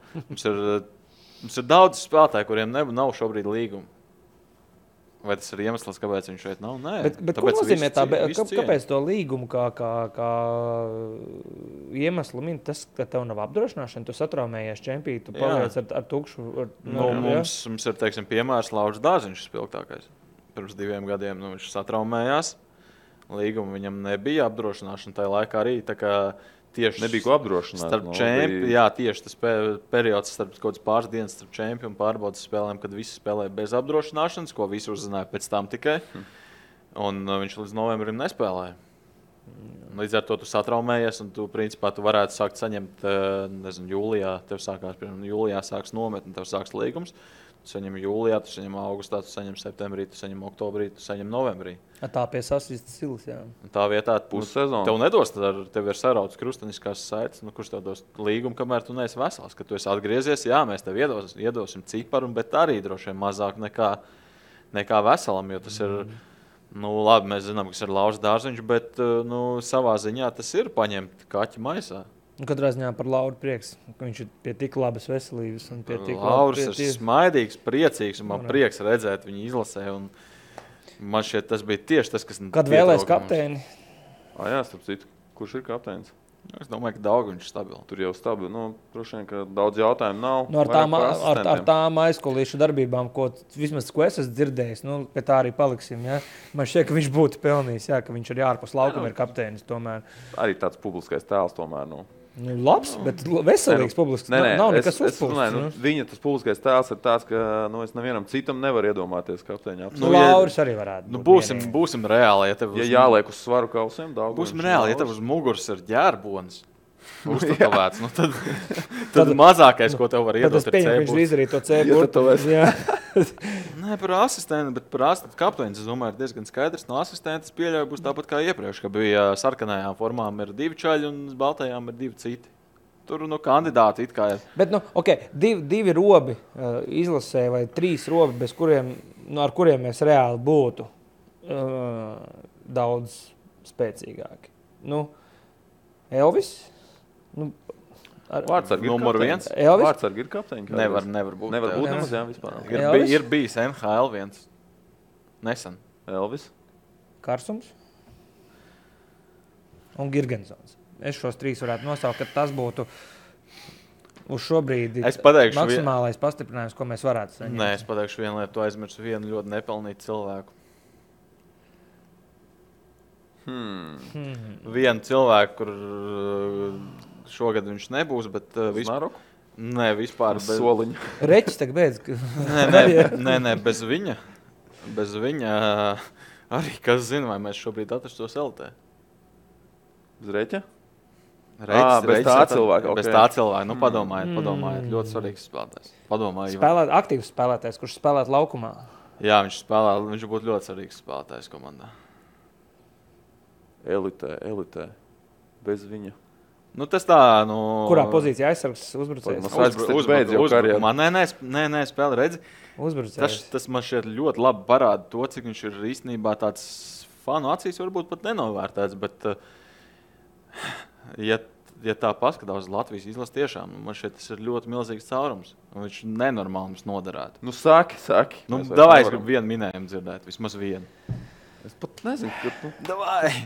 Speaker 3: Mums ir daudz spēlētāju, kuriem nav šobrīd līguma. Vai tas ir iemesls, kāpēc viņš šeit nav? Nē.
Speaker 2: Bet ko nozīmē kāpēc to līgumu kā iemeslu min tas, ka tev nav apdrošināšana? Tu satraumējies čempī, tu paliec ar tukšu.
Speaker 3: Mums ir, teiksim, piemērs Lauris Dārziņš spilgtākais. Pirms 2 gadiem viņš satraumējās. Līguma viņam nebija apdrošināšana tajā laikā arī. Tā kā tieši
Speaker 1: nebija ko apdrošināt.
Speaker 3: Jā, tieši tas periods starp kaut kāds pāris dienas starp čempi un pārbaudas spēlēm, kad visi spēlēja bez apdrošināšanas, ko visi uzzināja pēc tam tikai. Un viņš līdz novembrim nespēlēja. Līdz ar to tu satraumējies un tu, principā, tu varētu sākt saņemt, jūlijā, jūlijā sāks nometni, tev sāks līgums. Tu saņem jūlijā, tu saņem augustā, tu saņem septembrī, tu saņem oktobrī, tu saņem novembrī.
Speaker 2: Tā pie sasistas silas, jā.
Speaker 3: Tā vietā tev nedos, tev ir sarauts krusteniskās saites, kurš tev dos līgumu, kamēr tu neesi vesels. Kad tu esi atgriezies, jā, mēs tev iedosim ciparu, bet arī droši vien mazāk nekā veselam, jo tas ir, labi, mēs zinām, kas ir Lauris Dārziņš, bet savā ziņā tas ir paņemt kaķi maisā.
Speaker 2: Katrā ziņā par Lauru prieks, ka viņš ir pie tik labas veselības.
Speaker 3: Lauris ir smaidīgs, priecīgs, un man prieks redzēt viņu izlasē. Man šķiet, tas bija tieši tas, kas...
Speaker 2: Kad vēlēs kapteini?
Speaker 1: Jā, starp citu, kurš ir kapteinis?
Speaker 3: Es domāju, ka Daugaviņš ir stabili.
Speaker 1: Tur jau stabili. Droši vien, ka daudz jautājumu nav.
Speaker 2: Ar tām aizkolīšu darbībām, ko es esmu dzirdējis, pie tā arī paliksim. Ja? Man šķiet, ka viņš būtu pelnījis, jā, ka viņš ir ārpus laukuma, ir kapteinis tomēr.
Speaker 1: Arī tāds publiskais tēls tomēr.
Speaker 2: Labs, bet veselīgs publisks. Nav nekas uzpūsts.
Speaker 1: Viņa tas publiskais tēls ir tāds, ka es nevienam citam nevaru iedomāties kapteiņā.
Speaker 2: Lauris arī varētu būt.
Speaker 3: Būsim reāli.
Speaker 1: Ja jāliek uz svaru kausiem, daudz.
Speaker 3: Būsim reāli, ja tev uz muguras ir ģērbonis. Uztatovēts. Tad mazākais, ko tev var iedot, ir
Speaker 2: C-burts. Viņš izdarīja to C-burtu.
Speaker 3: Nē, par asistentu, bet par asistentu kapteinis, es domāju, ir diezgan skaidrs. No asistenta pieļauju būs tāpat kā iepriekš, ka bija sarkanajām formām ir 2 čaļi un baltajām ir 2 citi. Tur kandidāti it kā ir.
Speaker 2: Bet, divi robi izlasē vai 3 robi, bez kuriem, ar kuriem mēs reāli būtu daudz spēcīgāki. Elvis?
Speaker 1: Vārtsargi
Speaker 3: numur 1.
Speaker 1: Vārtsargi ir kapteiņi.
Speaker 3: Nevar būt.
Speaker 1: Nevar būt nemaz, jā, vispār.
Speaker 3: Ir bijis NHL 1. Nesen.
Speaker 1: Elvis.
Speaker 2: Karsums. Un Girgensons. Es šos 3 varētu nosaukt, ka tas būtu uz šo brīdi maksimālais pastiprinājums, ko mēs varētu saņemt.
Speaker 3: Nē, es pateikšu vienu lietu, tu aizmirsu vienu ļoti nepelnītu cilvēku. Vienu cilvēku, kur šogad viņš nebūs, bet
Speaker 1: Znaroku?
Speaker 3: Nē, vispār
Speaker 1: bez soliņa.
Speaker 2: Reķis tagad beidz.
Speaker 3: Nē, bez viņa. Bez viņa arī, kas zina, vai mēs šobrīd atrastos LT.
Speaker 1: Bez Reķa?
Speaker 3: Bez tā
Speaker 1: cilvēka.
Speaker 3: Bez tā cilvēka. Padomājiet. Ļoti svarīgs spēlētājs.
Speaker 2: Aktīvs spēlētājs, kurš spēlēt laukumā.
Speaker 3: Jā, viņš būtu ļoti svarīgs spēlētājs komandā.
Speaker 1: Elitē. Bez viņa.
Speaker 3: Tas tā,
Speaker 2: Kurā pozīcijā aizsargs uzbrucējs?
Speaker 3: Nē, spēle, redzi.
Speaker 2: Uzbrucējs.
Speaker 3: Tas man šeit ļoti labi parāda to, cik viņš ir īstenībā tāds fanu acīs varbūt pat nenovērtēts, bet ja tā paskatās uz Latvijas izlasi tiešām, man šeit tas ir ļoti milzīgs caurums. Viņš nenormāli mums noderētu.
Speaker 1: Saki.
Speaker 3: Davai, es gribu vienu minējumu dzirdēt, vismaz vienu.
Speaker 1: Es pat nezinu,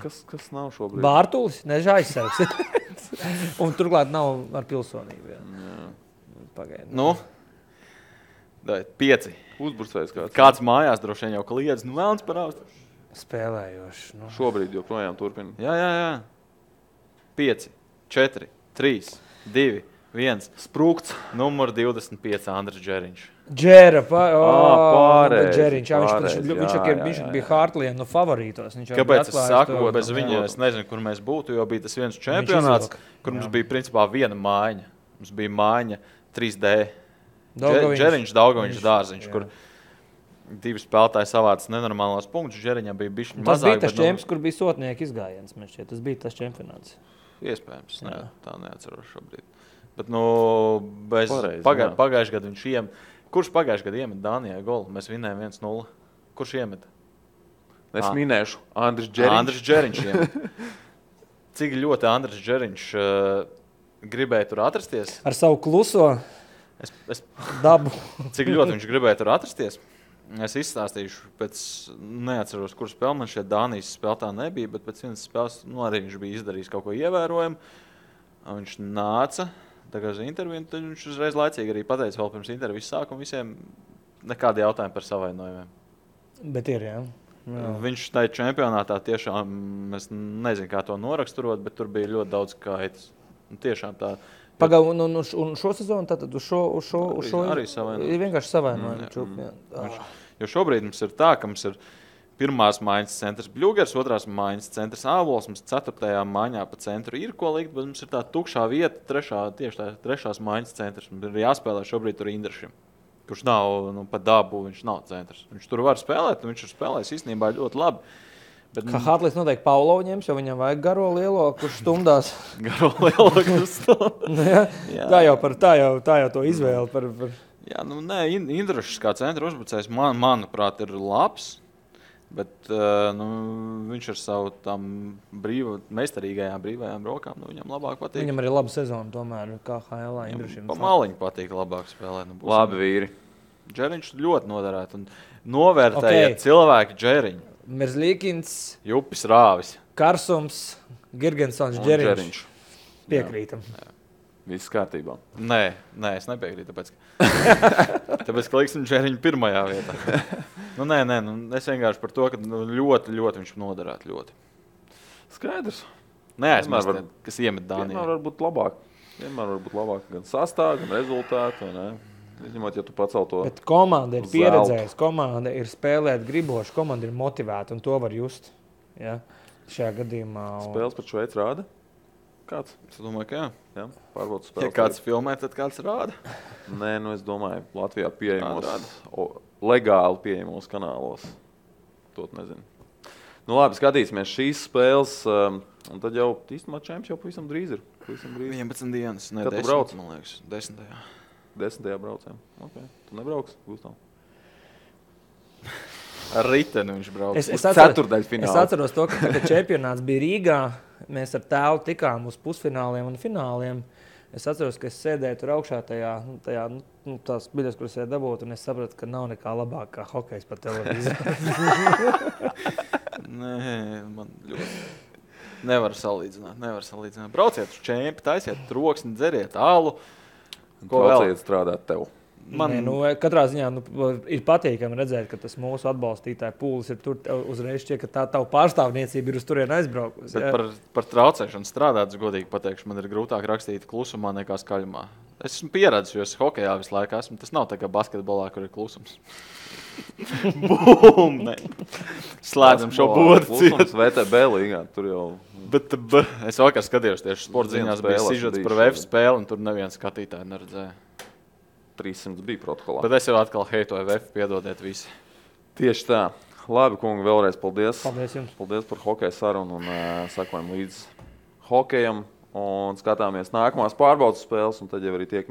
Speaker 1: kas nav šobrīd.
Speaker 2: Bārtulis, nežā aizsargs. Un turklāt nav ar pilsonību. Pagaidi.
Speaker 3: 5.
Speaker 1: Uzbrucējs kāds.
Speaker 3: Kāds mājās droši vien jau kliedz, vēlns par austu.
Speaker 2: spēlējoši. Nu.
Speaker 1: Šobrīd joprojām turpina.
Speaker 3: Jā. 5, 4, 3, 2, 1.
Speaker 1: Sprūkts.
Speaker 3: Numur 25 Andris Džeriņš.
Speaker 2: Džera,
Speaker 1: pārējais.
Speaker 2: Viņš bija Hartlija favorītos.
Speaker 3: Kāpēc es saku, bez viņa es nezinu, kur mēs būtu, jo bija tas viens čempionāts, kur mums bija principā viena mājiņa. Mums bija mājiņa 3D. Džeriņš, Daugaviņš, Dārziņš, kur divi spēlētāji savāca nenormālos punktus. Džeriņam bija bišķiņ mazāk.
Speaker 2: Tas bija tas čemps, kur bija sotnieki izgājiens. Tas bija tas čempionāts.
Speaker 3: Iespējams, tā neatceros šobrīd. Bet, pagājušajā gadā viņš iemet. Kurš pagājušajā gadā iemet Dānijai golu? Mēs vinējām 1-0. Kurš iemet?
Speaker 1: Es minēšu Andris Džeriņš.
Speaker 3: Andris Džeriņš iemet. Cik ļoti Andris Džeriņš gribēja tur atrasties?
Speaker 2: Ar savu kluso dabu.
Speaker 3: Cik ļoti viņš gribēja tur atrasties? Es izstāstīšu, neatceros, kur spēle man šeit Dānijas spēlētā nebija, bet pēc vienas spēles arī viņš bija izdarījis kaut ko ievērojumu. Viņš nāca uz interviju, tad viņš uzreiz laicīgi arī pateica vēl pirms intervijas sākuma visiem nekādi jautājumi par savainojumiem.
Speaker 2: Bet ir, jā.
Speaker 3: Viņš tajā čempionātā tiešām, es nezinu, kā to noraksturot, bet tur bija ļoti daudz kaitas. Tiešām tā.
Speaker 2: Pagaidu, un šo sezonu tātad uz šo
Speaker 3: arī savainojumi.
Speaker 2: Ir vienkārši savainojumi.
Speaker 3: Jo šobrīd mums ir tā, ka mums ir pirmās mājas centrs Bļūgers, otrās mājas centrs Ābols, mums 4. mājiņā pa centru ir ko likt, bet mums ir tā tukšā vieta, trešās mājas centrs. Mums ir jāspēlē šobrīd tur Indrašim, kurš nav pa dabu, viņš nav centrs. Viņš tur var spēlēt, un viņš ir spēlējis īstenībā ļoti labi. Bet,
Speaker 2: kā Hartlis noteikti Paulo ņems, jo viņam vajag garo lielo, kurš stumdās.
Speaker 3: Garo lielo, kurš stumdās.
Speaker 2: Tā jau to izvēle par...
Speaker 3: Jā, Indrašs kā centra uzbrucējs, manuprāt, ir labs. Bet viņš ar savu tām brīvajām rokām, viņam labāk patīk.
Speaker 2: Viņam arī laba sezona tomēr, kā HL Indrašim.
Speaker 3: Pa maliņu patīk labāk spēlēt.
Speaker 1: Labi vīri.
Speaker 3: Džeriņš ļoti noderētu un novērtēja cilvēki Džeriņu.
Speaker 2: Merzlīkins,
Speaker 3: Jupis Rāvis,
Speaker 2: Karsums, Girgensons, Džeriņš. Piekrītam.
Speaker 3: Jā.
Speaker 1: Viss kārtībā.
Speaker 3: Nē, es nepiekrītu, tāpēc ka liksim Džeriņu pirmajā vietā. Es vienkārši par to, ka ļoti viņš noderētu ļoti.
Speaker 1: Skaidrs.
Speaker 3: Neaizmirst, kas iemet Dānijā.
Speaker 1: Vienmēr var būt labāk gan sastāv, gan rezultātu. Izņemot, ja tu pacel to.
Speaker 2: Bet komanda ir pieredzējusi, komanda ir spēlēt griboši, komanda ir motivēta un to var just. Ja? Šajā gadījumā...
Speaker 1: Spēles par Šveici rāda? Kāds?
Speaker 3: Es domāju, ka
Speaker 1: jā. Pārbaudu spēles.
Speaker 3: Ja kāds filmē, tad kāds rāda?
Speaker 1: Nē, es domāju, Latvijā legāli pieejamos kanālos. To nezinu. Labi, skatīsimies šīs spēles, un tad jau īstenībā čemps jau pavisam drīz ir.
Speaker 3: 11 dienas,
Speaker 1: ne 10,
Speaker 3: man liekas, 10.
Speaker 1: 10. braucējām. Okay. Tu nebrauks, Gustav?
Speaker 3: Ar riteni viņš brauc.
Speaker 2: Es
Speaker 1: ceturdaļfinālu.
Speaker 2: Es atceros to, ka čempionāts bija Rīgā. Mēs ar tēvu tikām uz pusfināliem un fināliem. Es atceros, ka es sēdēju tur augšā tās biļetes, kuras es dabūtu, un es sapratu, ka nav nekā labāk kā hokejs pa televīziju.
Speaker 3: Nē, man ļoti... Nevar salīdzināt. Brauciet uz čempi, taisiet troksni, dzeriet alu.
Speaker 1: Ko vēl strādāt tev?
Speaker 2: Katrā ziņā ir patīkami redzēt, ka tas mūsu atbalstītāju pūlis ir tur uzreiz šķiet, ka tā tavu pārstāvniecība ir uz turieni aizbraukusi.
Speaker 3: Bet par traucēšanu strādāt, godīgi pateikšu, man ir grūtāk rakstīt klusumā nekā skaļumā. Es esmu pieredzis, jo es hokejā visu laiku esmu. Tas nav tā kā basketbolā, kur ir klusums. Bum! Slēdzam šo bodu.
Speaker 1: Klusums VTB līgā, tur jau...
Speaker 3: Bet es vakar skatījos tieši sporta ziņās, bija sižets par VF spēli, un tur neviens skatītāji neredzēja.
Speaker 1: 300 bija protokolā.
Speaker 3: Bet es jau atkal heitoju VF, piedodiet visi.
Speaker 1: Tieši tā. Labi, kungi, vēlreiz paldies.
Speaker 2: Paldies jums.
Speaker 1: Paldies par hokeja sarunu un sakojam līdz hokejam un skatāmies nākamās pārbaudas spēles un tad jau arī tiekamies.